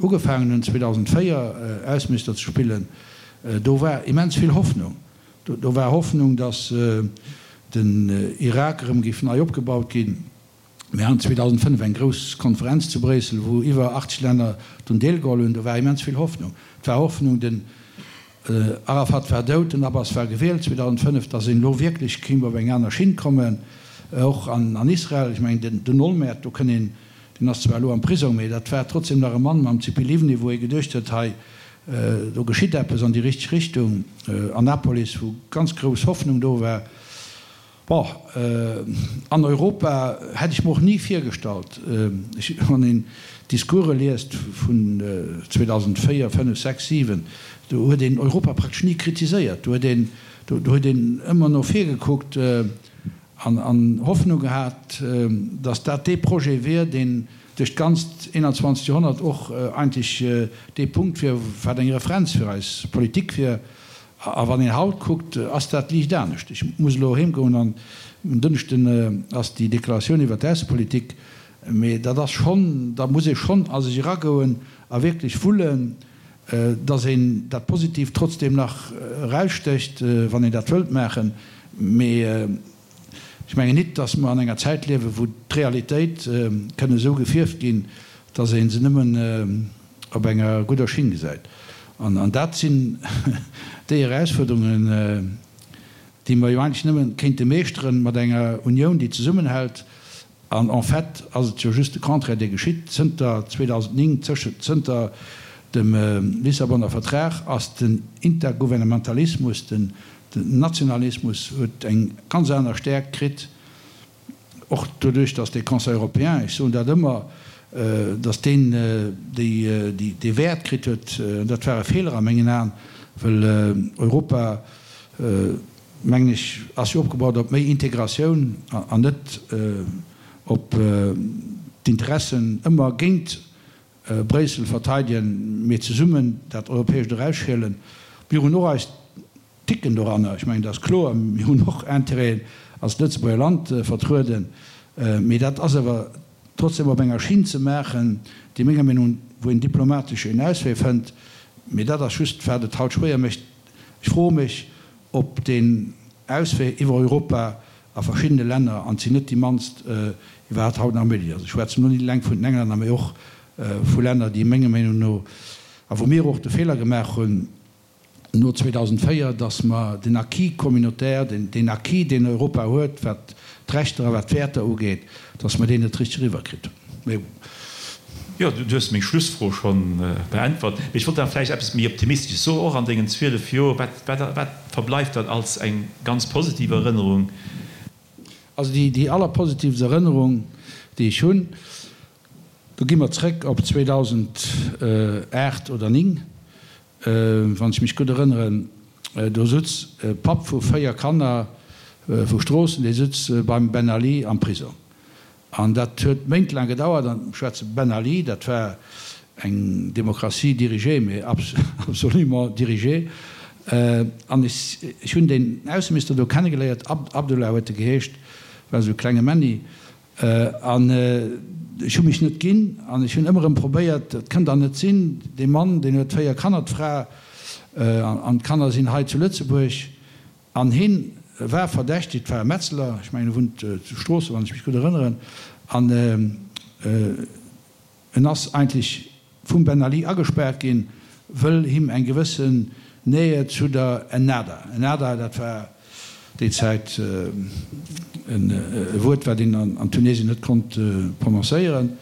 ugefaangen hunn 2004 Ausseminister ze spillen, do war immens vill Hoffnung. Do war Hoffnung, datt den Irak erëm géif nei opgebaut ginn. Mir haten 2005 eng grouss Konferenz zu Bréissel, wou iwwer 80 Länner drun deelgeholl hunn. Do war immens vill Hoffnung. Et war Hoffnung, den Arafat war dout, den Abbas war gewielt 2005, datt een elo wierklech kéint op eng aner Schinn kommen, och an Israel. Ech mengen, den Olmert, do kënn een, deen ass zwar elo am Prisong, mee dat war trotzdem nach e Mann mam Tzipi Livni, wou ee geduecht huet, hei. do geschitt eppes an déi richteg Richtung. Annapolis, wou ganz grouss Hoffnung do war. Bon, an Europa hätt ech mer och ni virgestallt, wann een d'Discourse liest vun 2004, 5, 6, 7, do huet een Europa praktesch ni kritiséiert, do huet een, do huet een ëmmer no vir gekuckt an Hoffnung gehat, datt dat dee Projet wier, deen duerch d'ganzt 21. Joerhonnert och eigentlech dee Punkt wier, wat eng Referenz fir eis Politik wier. A wann een haut kuckt, ass dat liicht anescht. Ech muss elo heem goen an en Dënschden ass déi Deklaratioun iwwert d'Aussepolitik. Mee dat ass schonn, da muss ee schonn a sech eragoen a wierklech wullen, datt een dat Positiivt trotzdeem nach erausstécht, wann een dat wëllt maachen. Mee ech mengen nit, datt mer an enger Zäit liewen, wou d'Realitéit kënn esou gefierft ginn, datt ee se nëmmen op enger gudder Schinn gesäit. An dat sinn déi Erausfuerderungen, déi mer jo eigentlech nëmme kéinte meeschteren mat enger Unioun, déi zesummenhält. An en fait ass et jo just de Contraire, dee geschitt. Zënter 2009, zënter dem Lissabonner Vertrag ass den Intergouvernementalismus, den Nationalismus huet eng ganz aner Stäerkt kritt. Och doduerch, datt dee Conseil européen, ech soen dat ëmmer, datt deen dee Wäert kritt huet, dat war e Feeler a mengen Aen, well Europa, mengen ech, ass jo opgebaut op méi Integratioun an net op d'Interessen ëmmer géint Bréissel verteidegen, mee zesummen dat Europäescht erausschielen. Mir hunn och eis Ticken doranner. Ech mengen, dat ass kloer. Mir hunn och Intérêten als Lëtzebuerger Land vertrueden. Mee dat ass awer trotzdem op enger Schinn ze maachen, déi menger Meenung, wou een diplomatesch een Auswee fënnt. Mee dat ass just, wat et haut schwéier mécht. Ech froe mech, ob deen Auswee iwwer Europa a verschiddene Länner, an et sinn net déi mannst, iwwerhaapt haut nach méiglech ass. Ech schwätzen elo net eleng vun den Englänner, mee och vu Länner, déi menger Meenung no, a wou mir och de Feeler gemaach hunn, no 2004, dass mer den Acquis communautaire, deen Acquis, deen Europa huet, wat d'Rechter a wat d'Wäerter ugeet, dass mer deen net richteg eriwwerkritt hunn. Mee bon. Jo, du hues meng Schlussfro scho beäntwert. Mee ech wollt awer vläicht eppes méi Optimistesches soen, och an dengen 12 Joer. Wat, wat, wat verbleift dann als eng ganz positiv Erënnerung? Also déi, déi allerpositivst Erënnerung, déi ech hunn, do gi mer zrëck op 2008 oder 9, Wann ech mech gutt erënneren, do sutz e Papp vu 4 Kanner vu Stroossen, dee sutz beim Ben Ali am Prisong. An dat huet méintelaang gedauert. An ech schwätze Ben Ali, dat war eng Démocratie dirigée, mais absolument dirigée. An ech hunn deen Ausseminister do kennegeléiert, Abdullah huet e geheescht, war esou e klenge Männi. An ech hu mech net ginn an ech hunn ëmmer erëm probéiert, et kënnt dach net sinn, dee Mann, deen huet 4 Kanner, d'Fra an d'Kanner sinn hei zu Lëtzebuerg an hien war verdächtigt, war e Metzeler, ech mengen e wunnt zu Stroossen, wann ech mech gutt erënneren, an En ass eigentlech vum Ben Ali agespaart ginn, wëll him eng gewëssen Nähe zu der Ennahda, Ennahda, dat war déi Zäit e Wuert, wat een an Tunesien net konnt prononcéieren.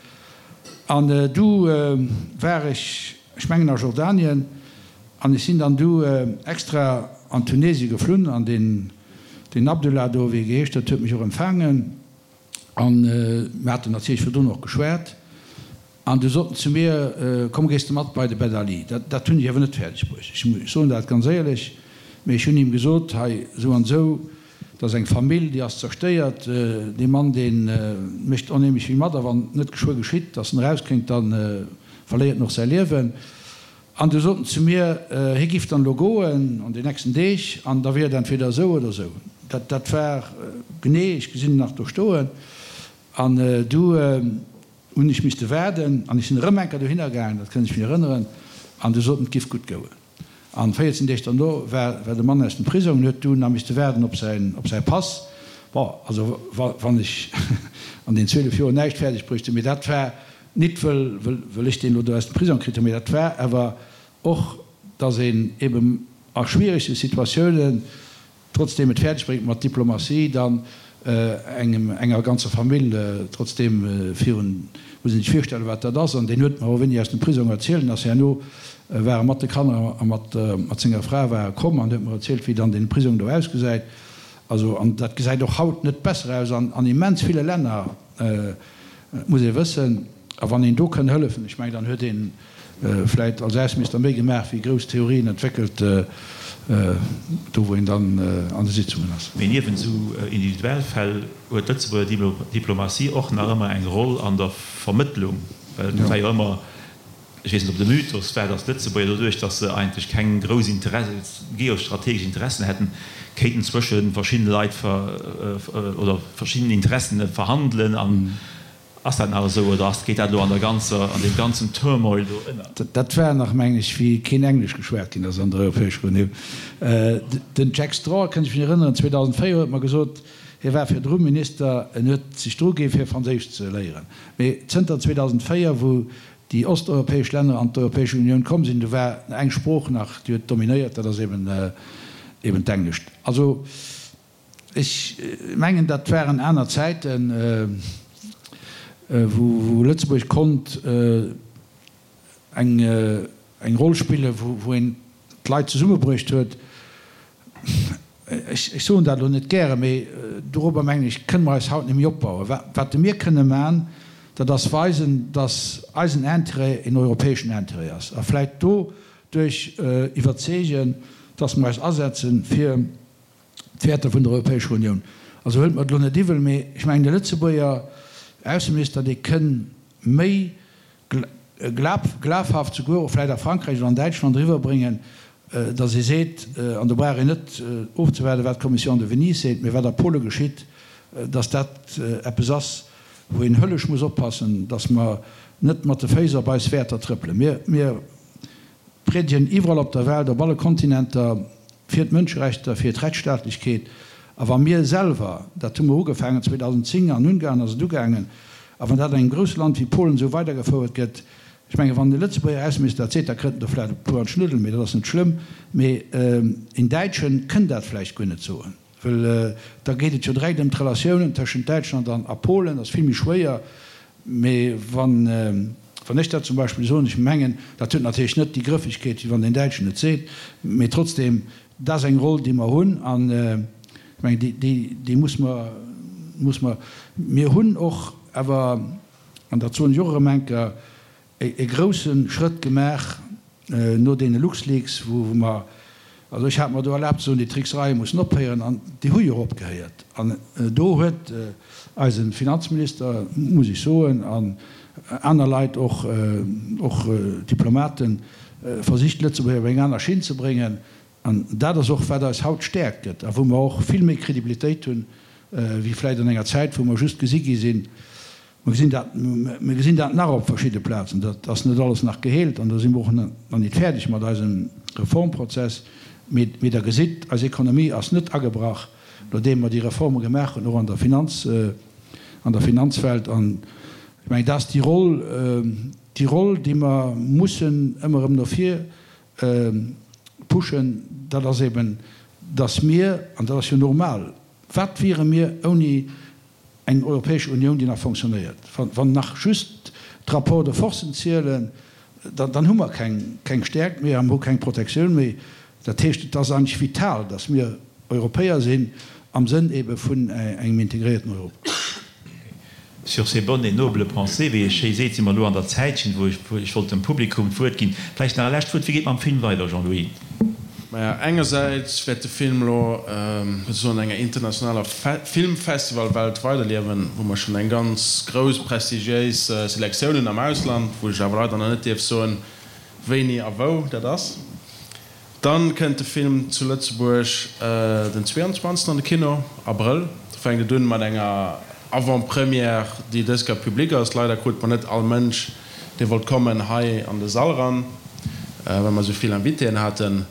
An du war ech, ech mengen a Jordanien, an ech sinn dann du extra an Tunesien geflunn, an deen Abdullah do, wéi e geheescht huet, huet mech och empfaangen. An mir haten natierlech virdrun och geschwat. An du sot en zu mir, Komm, gees de mat bei de Ben Ali. Dat, dat hunn ech awer net fäerdeg bruecht. Ech soen dat ganz éierlech. Mee ech hunn him gesot, Hei, esou an esou, dat ass eng Famill, déi ass zerstéiert. Dee Mann, dee mécht onheemlech vill mat. A wann net geschwë geschitt, datt en erauskéint, da verléiert en och säi Liewen. An du sot en zu mir, hie giff dann elo goen an den nächsten Deeg, an da wier et entweder esou oder esou. Dat, dat war genee, ech gesinn en nach do stoen. An du hunn ech misste waarden, an ech sinn erëm eng Kéier dohinner gaangen, dat kënn ech mir erënneren, an du sot en, et giff gutt gouen. An 14 Deeg derno war, war de Mann aus dem Prisong an huet du nach misste waarden op säin, op säi Pass. Bon, also wa, wann ech an den 12 Joer näischt fäerdeg bruecht hunn, mee dat war Nit wëll, wëll ech deen elo do aus dem Prisong kritt hunn, mee dat war awer och, dass een eben a schwierege Situatiounen trotzdeem et fäerdeg bréngt mat Diplomatie dann. Engem, enger ganzer Famill trotzdeem virun, muss een sech virstellen, wat dat ass. An deen huet mer och wéini aus dem Prisong erzielt en ass herno war e mat de Kanner a mat, mat senger Fra war e komm an huet mer erzielt, wéi dann deen Prisong do ausgesäit. Also, an dat gesäit och haut net besser aus an, an immens ville Länner, muss ee wëssen. A wann een do kënn hëllefen, ech mengen, dann huet een vläit als Ausseminister méi gemaach wéi grouss Theorien entwéckelt, do wou een dann an de Sitzungen ass. Mee niewent esou individuell Fäll huet d'Lëtzebuerger Diplomatie och nach ëmmer eng Roll an der Vermëttlung, well et war jo ëmmer, ech weess net ob et e Mythos war, datt d'Lëtzebuerger doduerch, datt se eigentlech keng grouss geostrategesch Interessen hätten, kéinten zwësche verschiddene Leit oder verschiddenen Interessen verhandelen an Ass dat nach esou oder ass, geet dat elo an der ganzer, an deem ganzen Turmoil do ënner? Dat war nach, mengen ech, wéi keen Englesch geschwat ginn ass an der Europäescher Unioun. Den Jack Straw, kënnt ech mech erënneren, 2004 huet mer gesot, hie war virdru Minister, en huet sech dru gi fir Franséisch ze léieren. Mee zënter 2004, wou déi osteuropäesch Länner an d'Europäesch Unioun komm sinn, do war eng Sprooch nach, déi huet dominéiert, dat ass eben, eben d'Englescht. Also Ech mengen, dat waren aner Zäiten, wou Lëtzebuerg konnt eng Roll spillen, wou een d'Leit zesummebruecht huet. Ech soen dat elo net gären, mee dorobber, mengen ech, kënne mer eis haut net méi opbauen. Wat mir kënne man, dat ass weisen, datt eisen Intérêt een europäeschen Intérêt ass a vläicht doduerch iwwerzeegen, datt mer eis asetzen, fir d'Wäerter vun der Europäescher Unioun. Also huelt mer et elo net iwwel, mee ech mengen, de Lëtzebuerger Ausseminister, dee kënn méi glafhaft souguer och vläicht a Frankräich oder an Däitschland eriwwerbréngen, datt ee seet, an do brauch een net ofzewaarden, wat d'Commission de Venise seet, mee wat a Pole geschitt, datt dat eppes ass, wou een höllesch muss oppassen, datt mer net mat de Féiss op eis Wäerter trëppelen. Mir Priedegen iwwerall op der Welt, op alle Kontinenter, fir d'Mënscherechter, fir d'Rechtsstaatlechkeet. A wa mir selwer, dat hu mer ugefaangen 2010 an Ungarn ass et ugaangen, a wann dat an engem grousse Land wéi Polen esou weidergefouert gëtt, ech mengen, wann e Lëtzebuerger Ausseminister dat seet, da kritt en der vläicht e puer an d'Schnuddel, mee dat ass net schlëmm, mee een Däitschen kënn dat vläicht guer net soen. Well da geet et jo direkt ëm d'Relatiounen tëschent Däitschland an a Polen, dat ass vill méi schwéier. Mee wann, wann ech dat zum Beispill soen, ech mengen, dat huet natierlech net déi Grëffegkeet, wéi wann deen Däitschen et seet, mee trotzdeem, dat ass eng Roll, déi mer hunn an ech mengen, déi, déi, déi muss mer, muss mer. Mir hunn och awer, an dat soen ech och erëm eng Kéier, e grousse Schrëtt gemaach no deene LuxLeaks, wou mer, also ech hat mer do erlaabt ze soen, déi Tricksereie mussen ophéieren, an déi hu jo och opgehéiert. An do huet eise Finanzminister, muss ech soen, an aner Leit och, och Diplomaten, versicht Lëtzebuerg op eng aner Schinn ze bréngen. An dat ass och wat eis haut Stäerkt gëtt a wou mer och vill méi Kredibilitéit hunn, wéi vläicht an enger Zäit, wou mer just gesi gi sinn, Mer gesinn dat, mer gesinn dat nach op verschidde Plazen. Dat ass net alles nach geheelt an do si mer och nach nit fäerdeg mat eisem Reformprozess. Mee, mee Der gesitt, eis Ekonomie ass net agebrach, nodeem mer déi Reforme gemaach hunn, och an der Finanz, an der Finanzwelt. An ech mengen, dat ass déi Roll, déi Roll, déi mer mussen ëmmer erëm no vir pushen, dat ass eben, dass mir, an dat ass jo normal, wat wiere mir ouni Eng Europäesch Unioun, déi nach fonctionnéiert. Wann nach just d'Rapports de forcen zielen, dann hu mer keng Stäerkt méi a mer hu keng Protektioun méi. Dat heescht, et ass eigentlech vital, datt mir Europäer sinn am Sënn ebe vun engem integréierten Europa. Sur ces bonnes et nobles pensées, wéi ee schéi seet, si mer elo an der Zäitchen, wou ech wollt dem Publikum d'Wuert ginn. Vläicht nach e lescht Wuert. Wéi geet mam Film weider, Jean-Louis? Maja, engersäits wäert de Film elo souzesoen an enger internationaler Filmfestivalwelt weiderliewen, wou mer schonn eng ganz grouss prestigiéis Selektioun hunn am Ausland, wou ech awer leider nach net dierf soen, wéini a wou dat ass. Dann kënnt de Film zu Lëtzebuerg den 22 an de Kino, Abrëll. Do fänkt et un mat enger Avant-Première, déi dës Kéier public ass. Leider krut mer net all Mënsch dee wollt kommen, hei an de Sall ran, well mer esou vill Invitéen haten.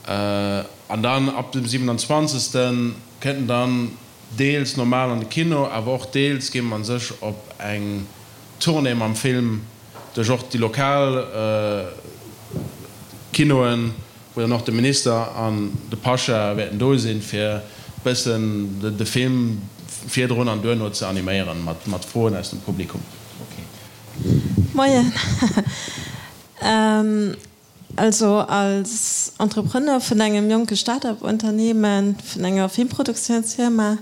An dann ab dem 27. kënnt en dann deels normal an de Kino, awer och deels geet mer sech op eng Tournée mam Film duerch och déi lokal Kinoen, wou dann och de Minister an de Pasha wäerten do sinn, fir bëssen de Film. virdrun an duerno ze animéieren mat Froen aus dem Publikum. Moien. Also als Entrepreneur vun engem jonke Start-up-Unternehmen, vun enger Filmproduktiounsfirma,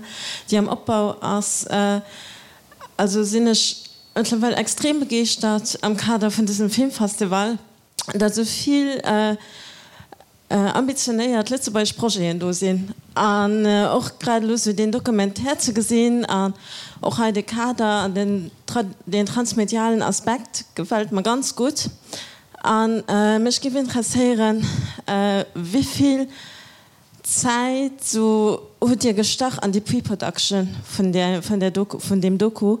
déi am Opbau ass, also sinn ech mëttlerweil extrem begeeschtert am Kader vun dësem Filmfestival, datt esou vill ambitionéiert lëtzebuergesch Projeten do sinn an och grad elo esou deen Documentaire ze gesinn an och hei de Kader an den deen transmedialen Aspekt gefält mer ganz gutt. An mech géif interesséieren, wéivill Zäit sou hutt Dir gestach an déi Pre-Production vun där vun där Doku vun deem Doku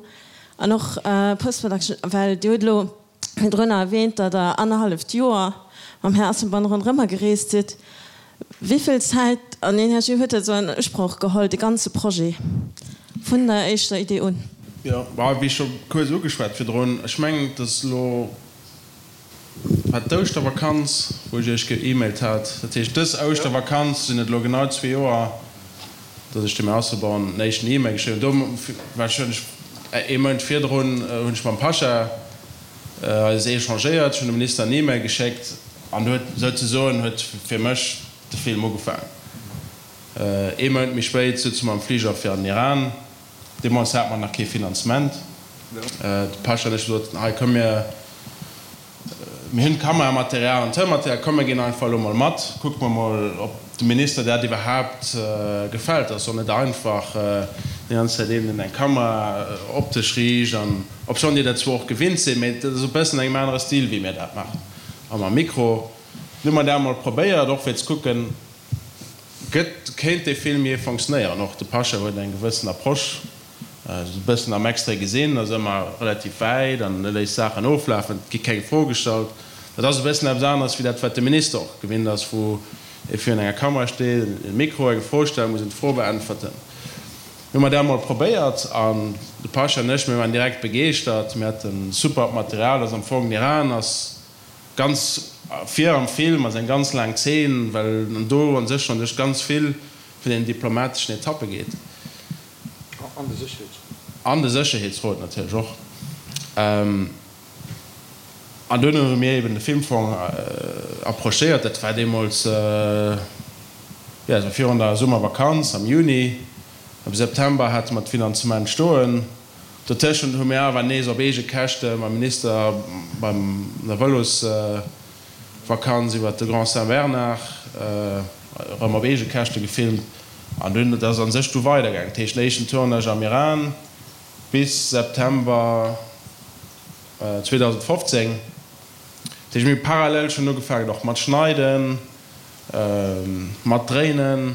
an och Post-Production, well Dir hutt elo virdrunner erwähnt, datt Der annerhalleft Joer mam Här Asselborn ronderëmmer gereest sidd. Wéivill Zäit an Energie huet dat esou an Usproch geholl, de ganze Projet vun der éischter Idee un? Jo, wéi scho kuerz ugeschwat virdrun, ech mengen, et ass elo War d'Ouschtervakanz, wou ech iech ge-emailt hat. Dat heescht, dës Ouschtervakanz sinn et elo genau zwee Joer, datt ech dem Här Asselborn den éischten E-Mail geschriwwen hunn. Do war ech, hunn ech ee Mount virdrun hunn ech mam Pasha eis échangéiert. Ech hunn dem Minister en E-Mail geschéckt an do huet souzesoen huet fir mech de Film ugefaangen. Ee Mount méi spéit souze mer am Fliger fir an den Iran. Deemools hate mer nach kee Finanzement. De Pasha an ech hu gesot, hei komm mir, mir hunn Kameramaterial an Tounmaterial, komm mir ginn einfach elo mol mat, kucke mer mol, ob dem Minister dat iwwerhaapt gefält. Dat ass och net einfach, déi ganz Zäit een, deen eng Kamera op dech riicht an, obschonn déi dat zwar och gewinnt sinn, mee dat ass e bëssen an engem anere Stil, wéi mir dat maachen a mam Mikro. Dunn hu mer dat mol probéiert, och fir ze kucken, Gëtt, kéint dee Film jee fonctionnéieren? Och de Pasha huet eng gewëssen Approche, esou e bëssen am Extrait gesinn, ass ëmmer relativ wäit an e léisst Saachen oflafen, et gi keng Fro gestallt. Dat ass e bëssen eppes aneres wéi dat, wat de Minister och gewinnt ass, wou ee virun enger Kamera steet, e Mikro, eng Fro stellt, muss een d'Fro beäntwerten. Mir hu mer dat emol probéiert an de Pasha an ech, mir waren direkt begeeschtert, mir hate supert Material, ass am Fong, den Iran ass Ganz vir am Film ass eng ganz laang Zeen, well en do an sech schonn duerch ganz vill vun den diplomateschen Etappe geet. An de Sécherheetsrot. An de Sécherheetsrot natierlech och. An duerno hu mir eben de Filmfong approchéiert. Dat war deemools, jo, dat war virun der Summervakanz am Juni. Am September hate mer d'Finanzement stoen. Dotëschent hu mir awer nees op eege Käschte mam Minister beim der Vëlosvakanz iwwert de Grand Saint-Bernard erëm op eege Käschte gefilmt an dunn, et ass a sech du weidergaangen. Dat heescht, den éischten Tournage am Iran bis September 2015. Dat heescht, mir hu parallel schonn ugefaangen och mat schneiden, mat dréinen.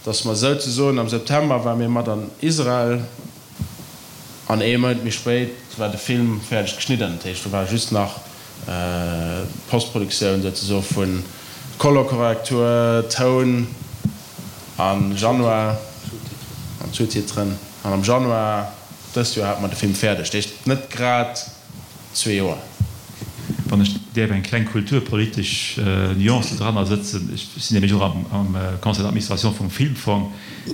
Dass mer souzesoen am September ware mir mat an Israel an ee Mount méi spéit war de Film fäerdeg geschnidden. Dat heescht, do war just nach d'Postproduktioun souzesoe vu Colorkorrektur, Toun a Januar an Sous-titren. An am Januar dëst Joer hate mer de Film fäerdeg. Dat heescht, net grad. zwee Joer. Wann ech däerf eng kleng kulturpolitesch Nuance dranner sëtzen, ech sinn nämlech och am Conseil d'administration vum Filmfong,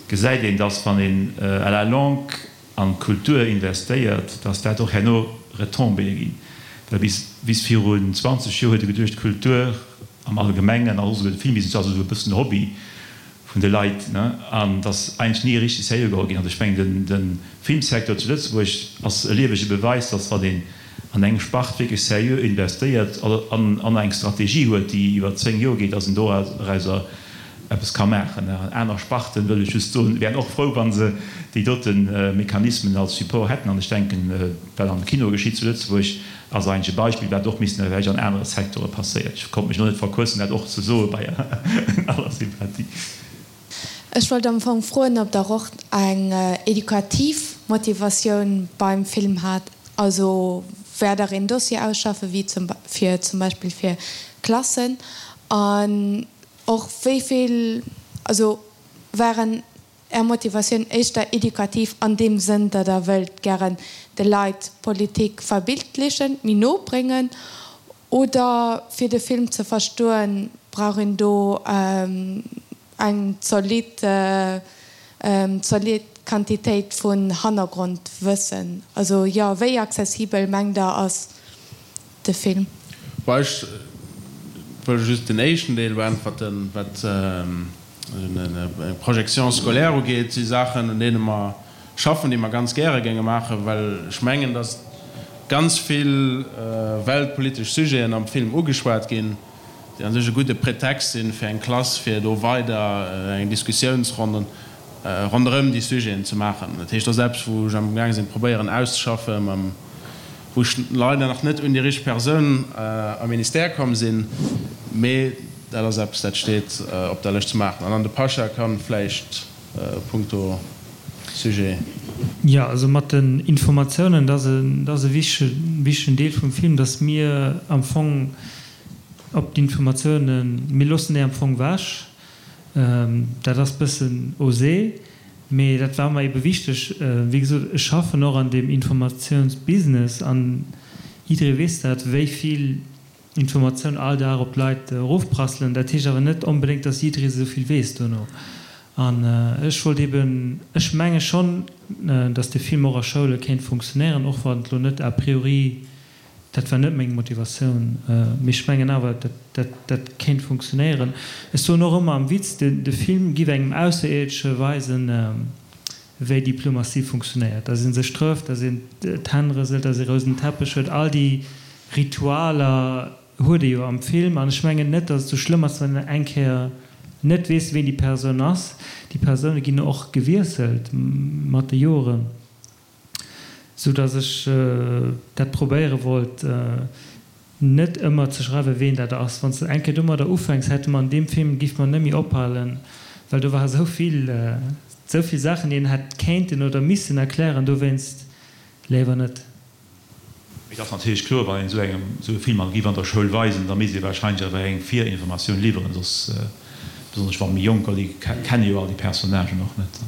gesäit een, dass wann een à la longue an d'Kultur investéiert, dass dat och herno Retombéeë ginn. Well bis bis virun 20 Joer huet ee geduecht, d'Kultur am Allgemengen an och esouguer de Filmbusiness ass esou e bëssen Hobby vun de Leit, ne, an dass eigentlech ni richteg sérieux geholl ginn. Also ech mengen, de Filmsecteur zu Lëtzebuerg ass e liewege Beweis, dass wann een an eng Spart wierklech sérieux investéiert an an eng Strategie huet, déi iwwer 10 Joer geet, dass een dorauser eppes ka maachen. An aner Sparten, wëll ech just soen, wären och frou, wa se déi dote Mechanismen als Support hätten. An ech denken, wat am Kino geschitt zu Lëtzebuerg, Ass eigentlech e Beispill, wat och missten vläicht an anere Secteure passéiert. Ech konnt mech elo net verquëssen, dat och ze soe bei aller Sympathie. Ech wollt am Fong froen, ob Der och eng edukativ Motivatioun beim Film hat. Also wäert Der een Dossier ausschaffen, wéi zum fir zum Beispill fir Klassen? An och wéi vill, also waren Är Motivatioun éischter edukativ an deem Sënn, datt Der wëllt gären de Leit Politik verbildlechen, méi no bréngen, oder fir de Film ze verstoen, brauch een do eng zolidd, zolidd. Quantitéit vun Hannergrondwëssen? Also jo, wéi accessibel mengt Der ass de Film? Bon, ech wëll just den éischten Deel beäntwerten, wat d'Projection scolaire ugeet. Si Saachen, un deene mer schaffen, déi mer ganz gäre géinge maachen, well ech mengen, datt ganz vill weltpolitesch Sujeten am Film ugeschwat ginn, déi a sech e gudde Pretext sinn, fir eng Klass, fir do weider eng Diskussiounsronn ronderëm déi Sujeten ze maachen. Dat heescht, dat ass eppes, wou ech amgaang sinn, probéieren auszeschaffen, mam, wou ech leider nach net un déi richteg Persoun am Ministère komm sinn, mee dat ass eppes, dat steet op der Lëscht ze maachen. An dann de Pasha kann vläicht punkto Sujet. Jo, also mat den Informatiounen, dat ass e wichtegen Deel vum Film, dass mir am Fong op d'Informatiounen, mir loossen déi am Fong wech. Dat ass bëssen osé, mee dat war mer ebe wichteg. Wéi gesot, ech schaffen och an deem Informatiounsbusiness an jidderee weess dat, wéi vill Informatioun all Dag op d'Leit erofprasselen. Dat heescht awer net onbedéngt, dass jidderee esou vill weess duerno. An ech wollt eben, ech menge schonn, dass de Film och a Schoule kéint funktionéieren, och wann et elo net a priori Dat war net meng Motivatioun, mee ech mengen awer, dat dat kéint funktionéieren. Ech soen och ëmmer am Witz, de Film giff engem Ausserierdesche weisen, wéi Diplomatie funktionéiert, dass ee sech trëfft, dass een d'Hänn rëselt, dass ee rousen Teppech huet, all déi Ritualer huet ee jo am Film. An ech mengen net, dass et sou schlëmm ass, wann een eng Kéier net weess, ween déi Persoun ass. Déi Persoune ginn och gewiesselt mat de Joren. Sou dass ech dat probéiere wollt, net ëmmer ze schreiwen, ween dat ass. Wann s de eng Kéier domadder ufänks, hätte mer an deem Film, giff mer net méi ophalen, well do ware sou vill, sou vill Saachen, déi een hätt kéinten oder missen erklären. Dowéinst léiwer net. Et ass natierlech kloer, wann een esou engem esou e Film an giff an der Schoul weisen, da misst ee wahrscheinlech awer eng Virinformatioun liwweren, soss, besonnesch wa méi Jonker, déi kenne jo all déi Personnagen och net.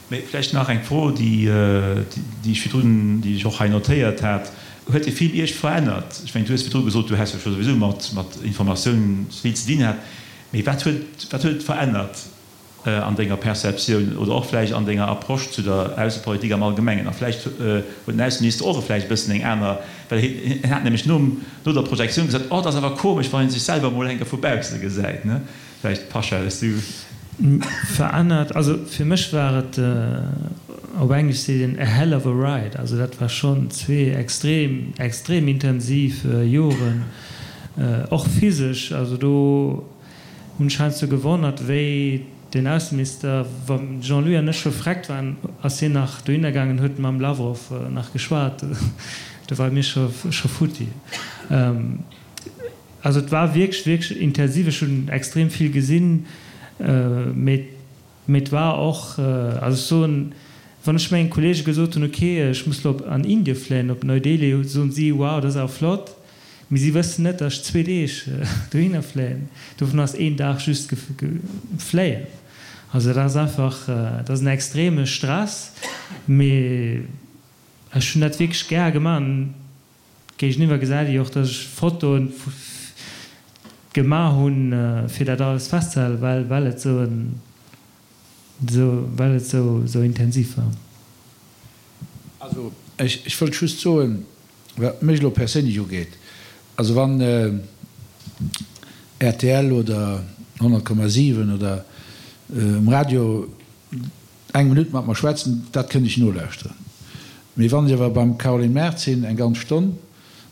Mee vläicht nach eng Fro, déi déi ech virdrun, déi ech och hei notéiert hat, Huet dee Film Iech verännert? Ech mengen, du hues virdru gesot, du häss jo scho souwisou mat mat Informatioun vill ze dinn hat, mee wat huet wat huet et verännert? an denger Perceptioun oder och vläicht an denger Approche zu der Aussepolitik am Allgemengen? A vläicht huet den Ausseminister och vläicht e bëssen eng aner, well hien hat nämlech nom, no der Projektioun gesot, Oh, et ass awer komesch, wann ee sech selwer emol eng Kéier vu bausse gesäit, ne? Vläicht, Pasha, hues du. Verännert? Also fir mech war et, op Englesch seet een a hell of a ride, also dat war schonn zwee extrem, extrem intensiv Joren, och physesch, also do, Hunn ech heiansdo gewonnert, wéi den Ausseminister, wa Jean-Louis an ech scho vreckt waren, ass hien nach dohinner gaangen, huet mam Lawrow nach geschwat. Do ware mir scho futti. Also et war wierklech, wierklech intensiv. Ech hunn extrem vill gesinn, mee et war och, also ech soen, wann ech mengen Kollege gesot hunn, ok, ech muss elo an Indie fléien, op Neu-Delhi, soen si, wow, dat ass awer flott. Mee si wëssen net, datt ech zwee Deeg dohinner fléien. Dovun ass een Dag just fléien. Also dat ass einfach, dat ass en extreme Stress. Mee ech hunn dat wierklech gär gemaach. An géigeniwwer gesäit ee jo och, datt ech Fotoen gemaach hunn, fir dat alles festzehalen, well well et esou en, well et esou intensiv war. Also ech wëllt just soen, Wat mech elo perséinlech ugeet, also wann rtl oder 100,7 oder um Radio eng Minutt mat mer schwätzen, dat kënnt ech nolauschteren. Mee wann ech awer beim Caroline Mart sinn eng ganz Stonn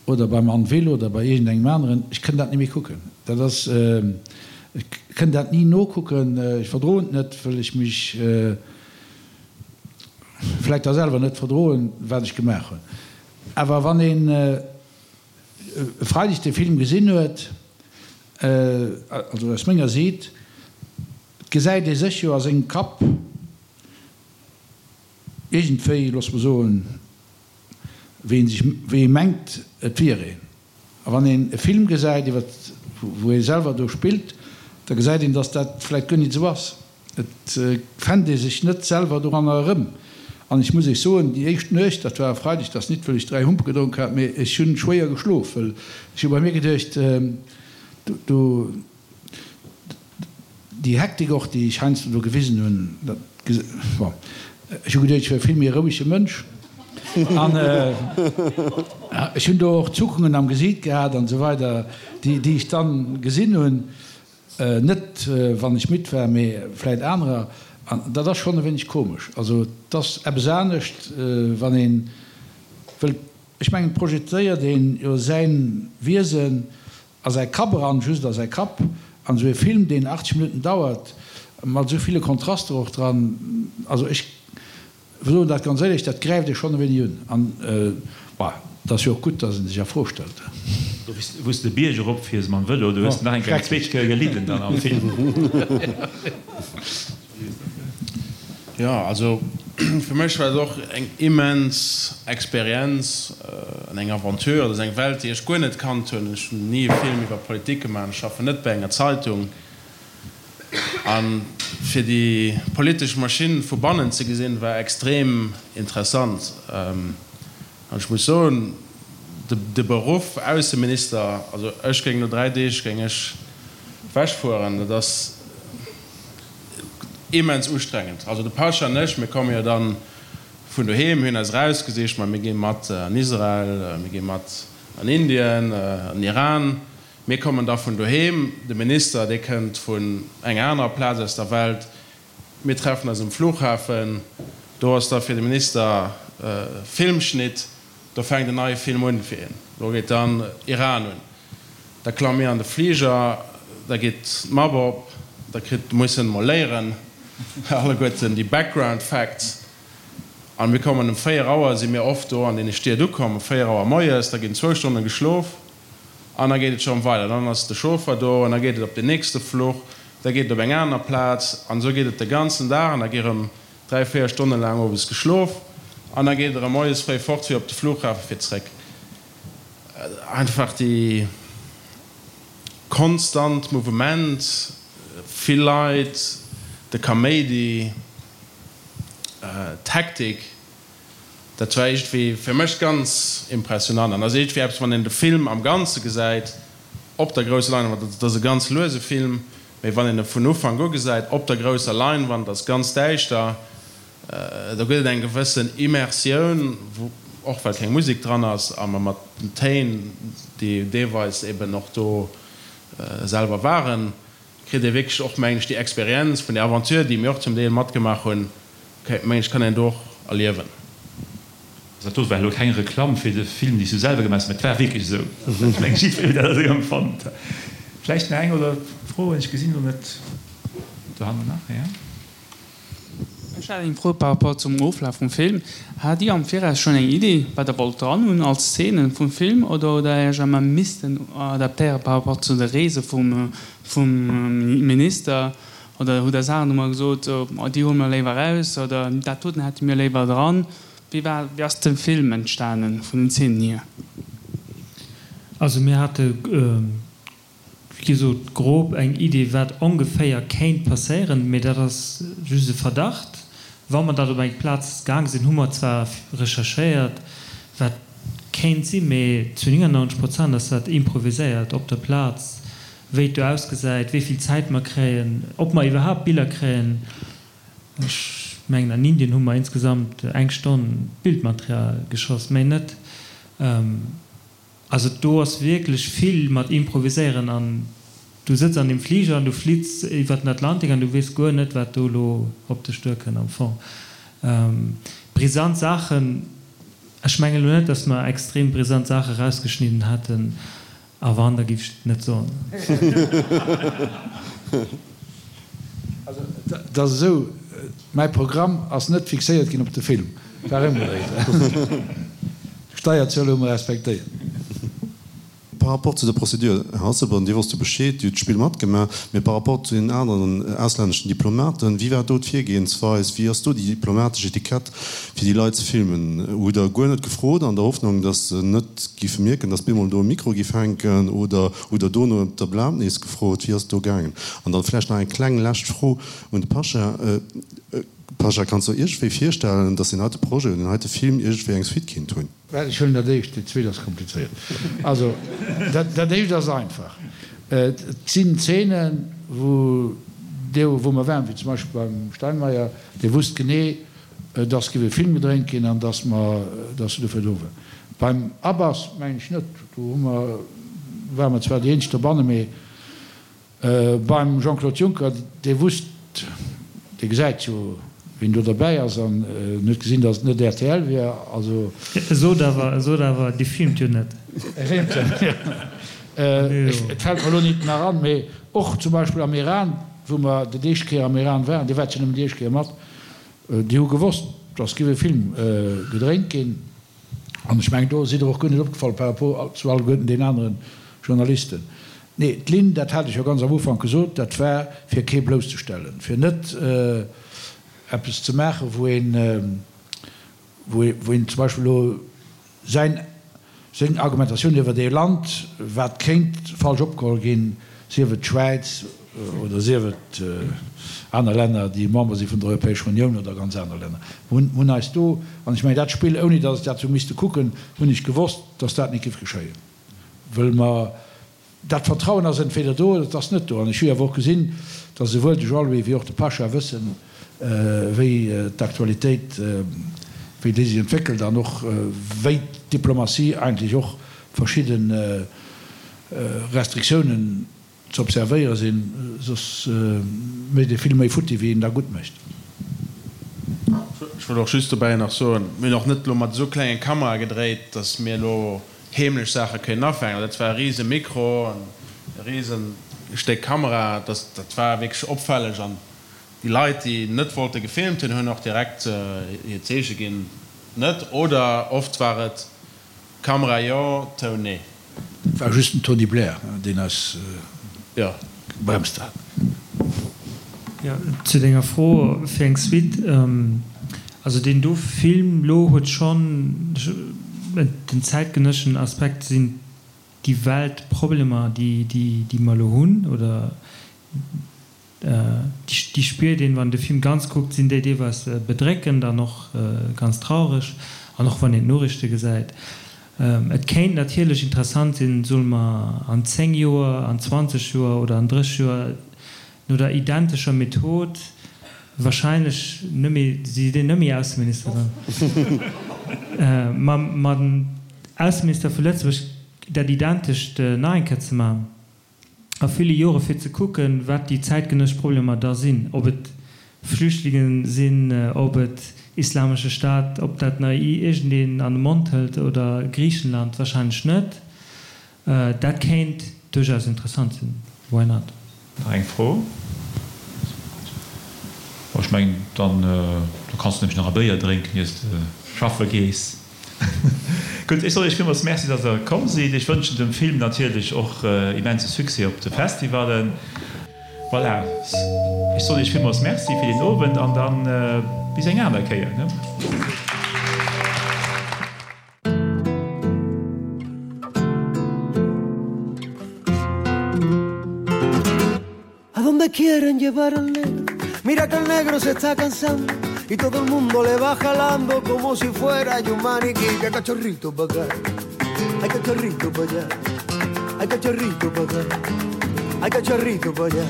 oder beim Anne Will oder bei iergendengem aneren, ech kënn dat ni méi kucken. Dat ass, ech kënn dat ni nokucken, ech verdroen et net, wëll ech mech, vläit da selwer net verdroen, wat ech gemaach hunn. Awer wann een e Freideg dee Film gesinn huet, also aus menger Siit, gesäit ee sech jo a sengem Kapp iergendwéi, loosse mer soen, wéi ee sech, wéi ee mengt, et wier een. A wann een e Film gesäit, iwwer wou ee selwer do spillt, da gesäit een, datt dat vläicht guer nit esou ass. Et fennt ee sech net selwer doranner erëm. An ech muss Iech soen, déi éischt Nuecht, dat war e Freideg, dat ass nit, wëll ech 3 Humpe gedronk hat, mee ech hunn schwéier geschlof, wëll ech hu bei mir geduecht, do, déi Hektik och, déi ech heiansdo do gewisen hunn, dat, bon. Ech hu geduecht, ech wier e vill méi rouege Mënsch. An ech hunn do och Zuckungen am Gesiit gehat an esou weider, déi ech dann gesinn hunn. Net wann ech midd war, mee vläit anerer. An dat ass schonn e wéineg komesch. Also et ass eppes anescht, wann ee wëllt, ech mengen, et projezéiert een jo säin Wiesen a säi Kapp eran, just a säi Kapp. An esou e Film, deen 80 Minutten dauert, mat esou ville Kontraster och dran, also ech soen dat ganz éierlech, dat gräift ee schonn e wéineg un. An, bon, et ass jo och gutt, datt ee sech a Fro stellt. Do, wou s de Bierg erop fiers mam Vëlo, do hues de nach eng Kéier eng zweet Kéier gelidden dann am Film. Jo, also fir mech war et och eng immens Experienz an eng Aventure. Dat ass eng Welt, déi ech guer net kannt hunn. Ech hunn ni e Film iwwer Politik gemaach, ech schaffen net bei enger Zeitung. A fir déi politesch Maschinn vu bannen ze gesinn, war extrem interessant. An ech muss soen, de Beruff Ausseminister, also ech géing no 3 Deeg géing ech wechfueren, dat ass immens ustrengend. Also de Pascha an ech, mir komme jo dann vun doheem, mir hunn eis erausgesicht, ma mir gi mat an Israel, mir gi mat an Indien, an Iran. Mir kommen da vun doheem, de Minister, dee kënnt vun enger anerer Plaz aus der Welt. Mir treffen eis um Flughafen, do ass da fir de Minister Filmschnitt, do fänkt en neie Film un fir hien. Do geet dann Iran un. Da klamme mir an de Fliger, da geet d'Mapp op, da kritt, muss en emol léieren, alleguerten déi Background Facts. A mir kommen um 4 Auer, si mir oft do an deene Stied ukomm, um 4 Auer moies, da ginn zwou Stonne geschlof an da geet et scho weider. Dann ass de Chauffer do an da geet et op den nächste Fluch, da geet et op eng aner Plaz an esou geet et de ganzen Dag an da gi rëm 3, 4 Stonne laang owes geschlof an da geet et erëm moies fréi fort fir op de Flughafe fir zréck. Einfach déi konstant Mouvement, vill Leit, de Kaméidi, d'Hektik, dat war iergendwéi fir mech ganz impressionant an ass iergendwéi eppes, wann een de Film am Ganze gesäit op der grousser Leinwand, dat ass e ganz luese Film, mee wann een e vun Ufank u gesäit op der grousser Leinwand, ass ganz däischter, Do gëtt et eng gewëssen Immersioun, wou, och well keng Musek dran ass a mer mat den Téin, déi deelweis eben och do selwer waren, kritt ee wierklech och, mengen ech, déi Experienz vun där Aventure, déi mir och zum Deel matgemaach hunn, mengen ech, kann een do och erliewen. Dat do war elo keng Reklamm fir de Film, dee s du selwer gemaach hues, mä et war wierklech esou. Ech mengen, jiddweree huet dat esou empfonnt. Vläicht nach eng oder Froen? Ech gesinn elo net. Dohannen nach, jo. Ech hat eng Fro par rapport zum Oflaf vum Film. Hat Dir am Viraus schonn eng Idee, wat Der wollt dran hunn als Szenen vum Film, oder hutt Der Iech emmer missten adaptéiere par rapport zu de Reese vum Minister, oder hutt Der Saachen emmer gesot, déi huele mer léiwer eraus oder dat doten hätte mir léiwer dran? Wéi war, wéi ass de Film entstanen vun den Szenen hier? Also mir hate Wéi gesot, grob eng Idee, wat ongeféier kéint passéieren, mee dat ass just e Verdacht. Wa mer dat op eng Plaz gaang sinn, hu mer zwar recherchéiert, wat kéint sinn, mee zu 99 Prozent ass dat improviséiert op der Plaz, wéi et do ausgesäit, wéi vill Zäit mer kréien, ob mer iwwerhaapt Biller kréien. Ech mengen, an Indien hu mer insgesamt eng Stonn Bildmaterial geschoss, méi net. Also do ass wierklech vill mat improviséieren an du sëtz an deem Fliger an du flitts iwwert den Atlantik an du weess guer net wat do elo op dech duerkënnt am Fong. Brisant Saachen, ech mengen elo net, datt mer extrem brisant Saache rausgeschnidden hätten, a wann, da giff ech et net soen. Also et ass esou, mäi Programm ass net fixéiert ginn op de Film, war ëmgedréit. D'Steierzuel hu mer respektéiert. Par rapport zu der Procédure, Här Asselborn, Dir wosst jo Bescheed, Dir hutt d'Spill matgemaach, mee par rapport zu den aneren auslänneschen Diplomaten, wéi war do d'Virgehensweis, wéi ass do déi diplomatesch Etikett, fir déi Leit ze filmen? Hutt Der guer net gefrot, an der Hoffnung, datt se net giffe mierken, datt bemol do e Mikro giff hänken, oder hutt Der dono ëm d'Erlaabnis gefrot? Wéi ass et do gaangen? An dann vläicht nach eng kleng lescht Fro un de Pasha. Pasha, kanns du der iergendwéi virstellen, datt deen heite Projet oder deen heite Film iergendwéi eng Suite kinnt hunn? Well ech huelen dat éischt, dat zweet ass komplizéiert. Also dat éischt ass einfach. Et sinn Zeenen, wou dee wou mer waren, wéi zum Beispill beim Steinmeier, dee wusst genee. dass géif e Film gedréint ginn an dass mer, dass se dofir do war. Beim Abbas mengen ech net, do hu mer, ware mer zwar déi eenzeg dobanne, mee beim Jean-Claude Juncker, dee wusst, dee gesäit jo, wien do derbäi ass an en huet gesinn, dass et net rtl wier, also. E sot awer, e sot awer, Dir filmt jo net. E filmt jo net, jo. Et fält mer elo nit nach an, mee och zum Beispill am Iran, wou mer déi éischt Kéier am Iran waren, Dir waart jo nëmmen déi éischt Kéier mat, Déi hu gewosst, dass giff e Film gedréint ginn. An ech mengen, do sidd Der och guer net opgefall par rapport zu alleguerten den anere Journalisten. Nee, d'Linn, dat hat ech jo ganz am Ufank gesot, dat war fir kee blousszestellen, fir net eppes ze maachen, wou een, wou een zum Beispill elo Säin, seng Argumentatioun iwwert ee Land, wat kéint falsch opgeholl ginn, sief et d'Schwäiz oder sief et aner Länner, déi Member si vun der Europäescher Unioun oder ganz aner Länner. Mir hunn, hunn eis do, an ech mengen dat Spill, ouni datt ech dat hu misste kucken, hunn ech gewosst, datt dat net géif geschéien, wëll mer Dat Vertrauen ass entweder do oder et ass net do. An ech hu jo awer och gesinn, datt esouwuel de Jean-Louis wéi och de Pasha wëssen, wéi d'Aktualitéit, wéi déi sech entwéckelt an och wéi d'Diplomatie eigentlech och verschidde Restriktiounen ze observéiere sinn, soss mécht ee vill méi futti wéi een da gutt mécht. Ech wollt och just dobäi nach soen, mir hunn och net elo mat esou klenge Kamerae gedréit, datt mir elo heemlech Saache kënnen afänken. Dat war e rise Mikro an e rise Stéck Kamera. Dat war wierklech opfälleg an déi Leit, déi net wollte gefilmt hunn, hunn och direkt hir Zeeche ginn, net. Oder oft war et Kamera jo, Toun nee. Dat war just den Tony Blair, deen eis gebremst hat. Jo, zu denger Fro fir eng Suite, Also deen do Film lo huet schonn den zäitgenësschen Aspekt, sinn déi Weltproblemer déi déi mer lo hunn oder déi spiert een wann de Film ganz kuckt, sinn déi deelweis bedréckend an och ganz traureg an och wann een d'Noriichte gesäit. Et kéint natierlech interessant sinn, solle mer an 10 Joer, an 20 Joer oder an 30 Joer no der identescher Method wahrscheinlech net méi, si sinn net méi Ausseminister dann, ma mam Ausseminister vu Lëtzebuerg dat identescht nach eng Kéier ze maachen a ville Jore fir ze kucken, wat déi zäitgenëssesch Problemer da sinn, ob et Flüchtlinge sinn, ob et Islamesche Staat, ob dat nach iergendeen an de Mond hëlt oder Griichenland, wahrscheinlech net. Dat kéint duerchaus interessant sinn, why not? Nach eng Fro? Bon, ech mengen, dann do kanns du nämlech nach e Béier drénken, iers de schaffe gees. Gutt, ech soen Iech villmools Merci, dass Der komm sidd. Ech wënschen dem Film natierlech och immense Succès op de Festivallen. Voilà, ech soen Iech villmools Merci fir deen Owend an dann bis eng aner Kéier, ne? A donde quieren llevar al negro Mira que el negro se está cansando Y todo el mundo le va jalando Como si fuera un maniquí Que cachorrito pa' acá Ay cachorrito pa' allá Ay cachorrito pa' acá Ay cachorrito pa' allá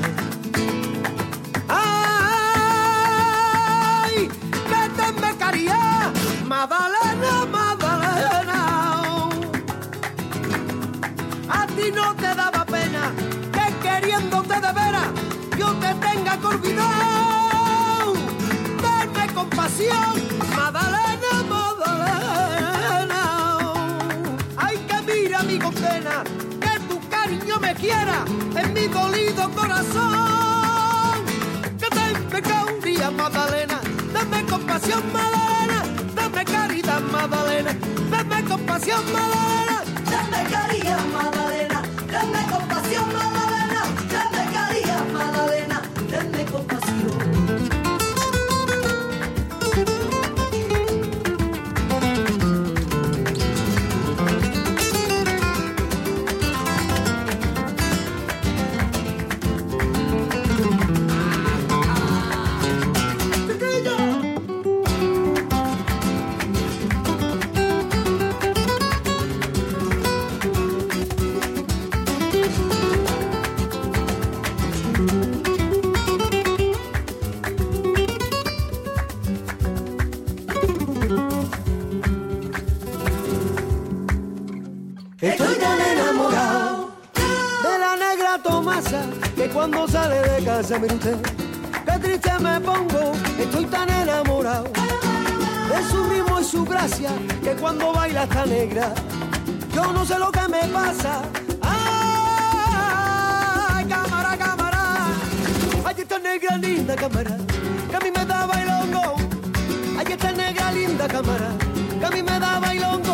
Ay, que te me caría Madalena, Madalena A ti no te daba pena Que queriéndote de veras Yo te tenga que olvidar Tenme compasión Madalena, Madalena Ay, que mira mi condena Que tu cariño me quiera En mi dolido corazón Que te me Madalena Dame compasión, Madalena Dame caridad, Madalena Dame compasión, Madalena Dame caridad, Madalena Dame compasión, Madalena Dame caridad, Madalena Dame compasión Estoy tan enamorado de la negra Tomasa que cuando sale de casa, mire usted, qué triste me pongo, estoy tan enamorado de su ritmo y su gracia que cuando baila esta negra, yo no sé lo que me pasa. Ay, cámara, cámara, ay, esta negra linda cámara, que a mí me da bailongo. Ay, esta negra linda cámara, que a mí me da bailongo.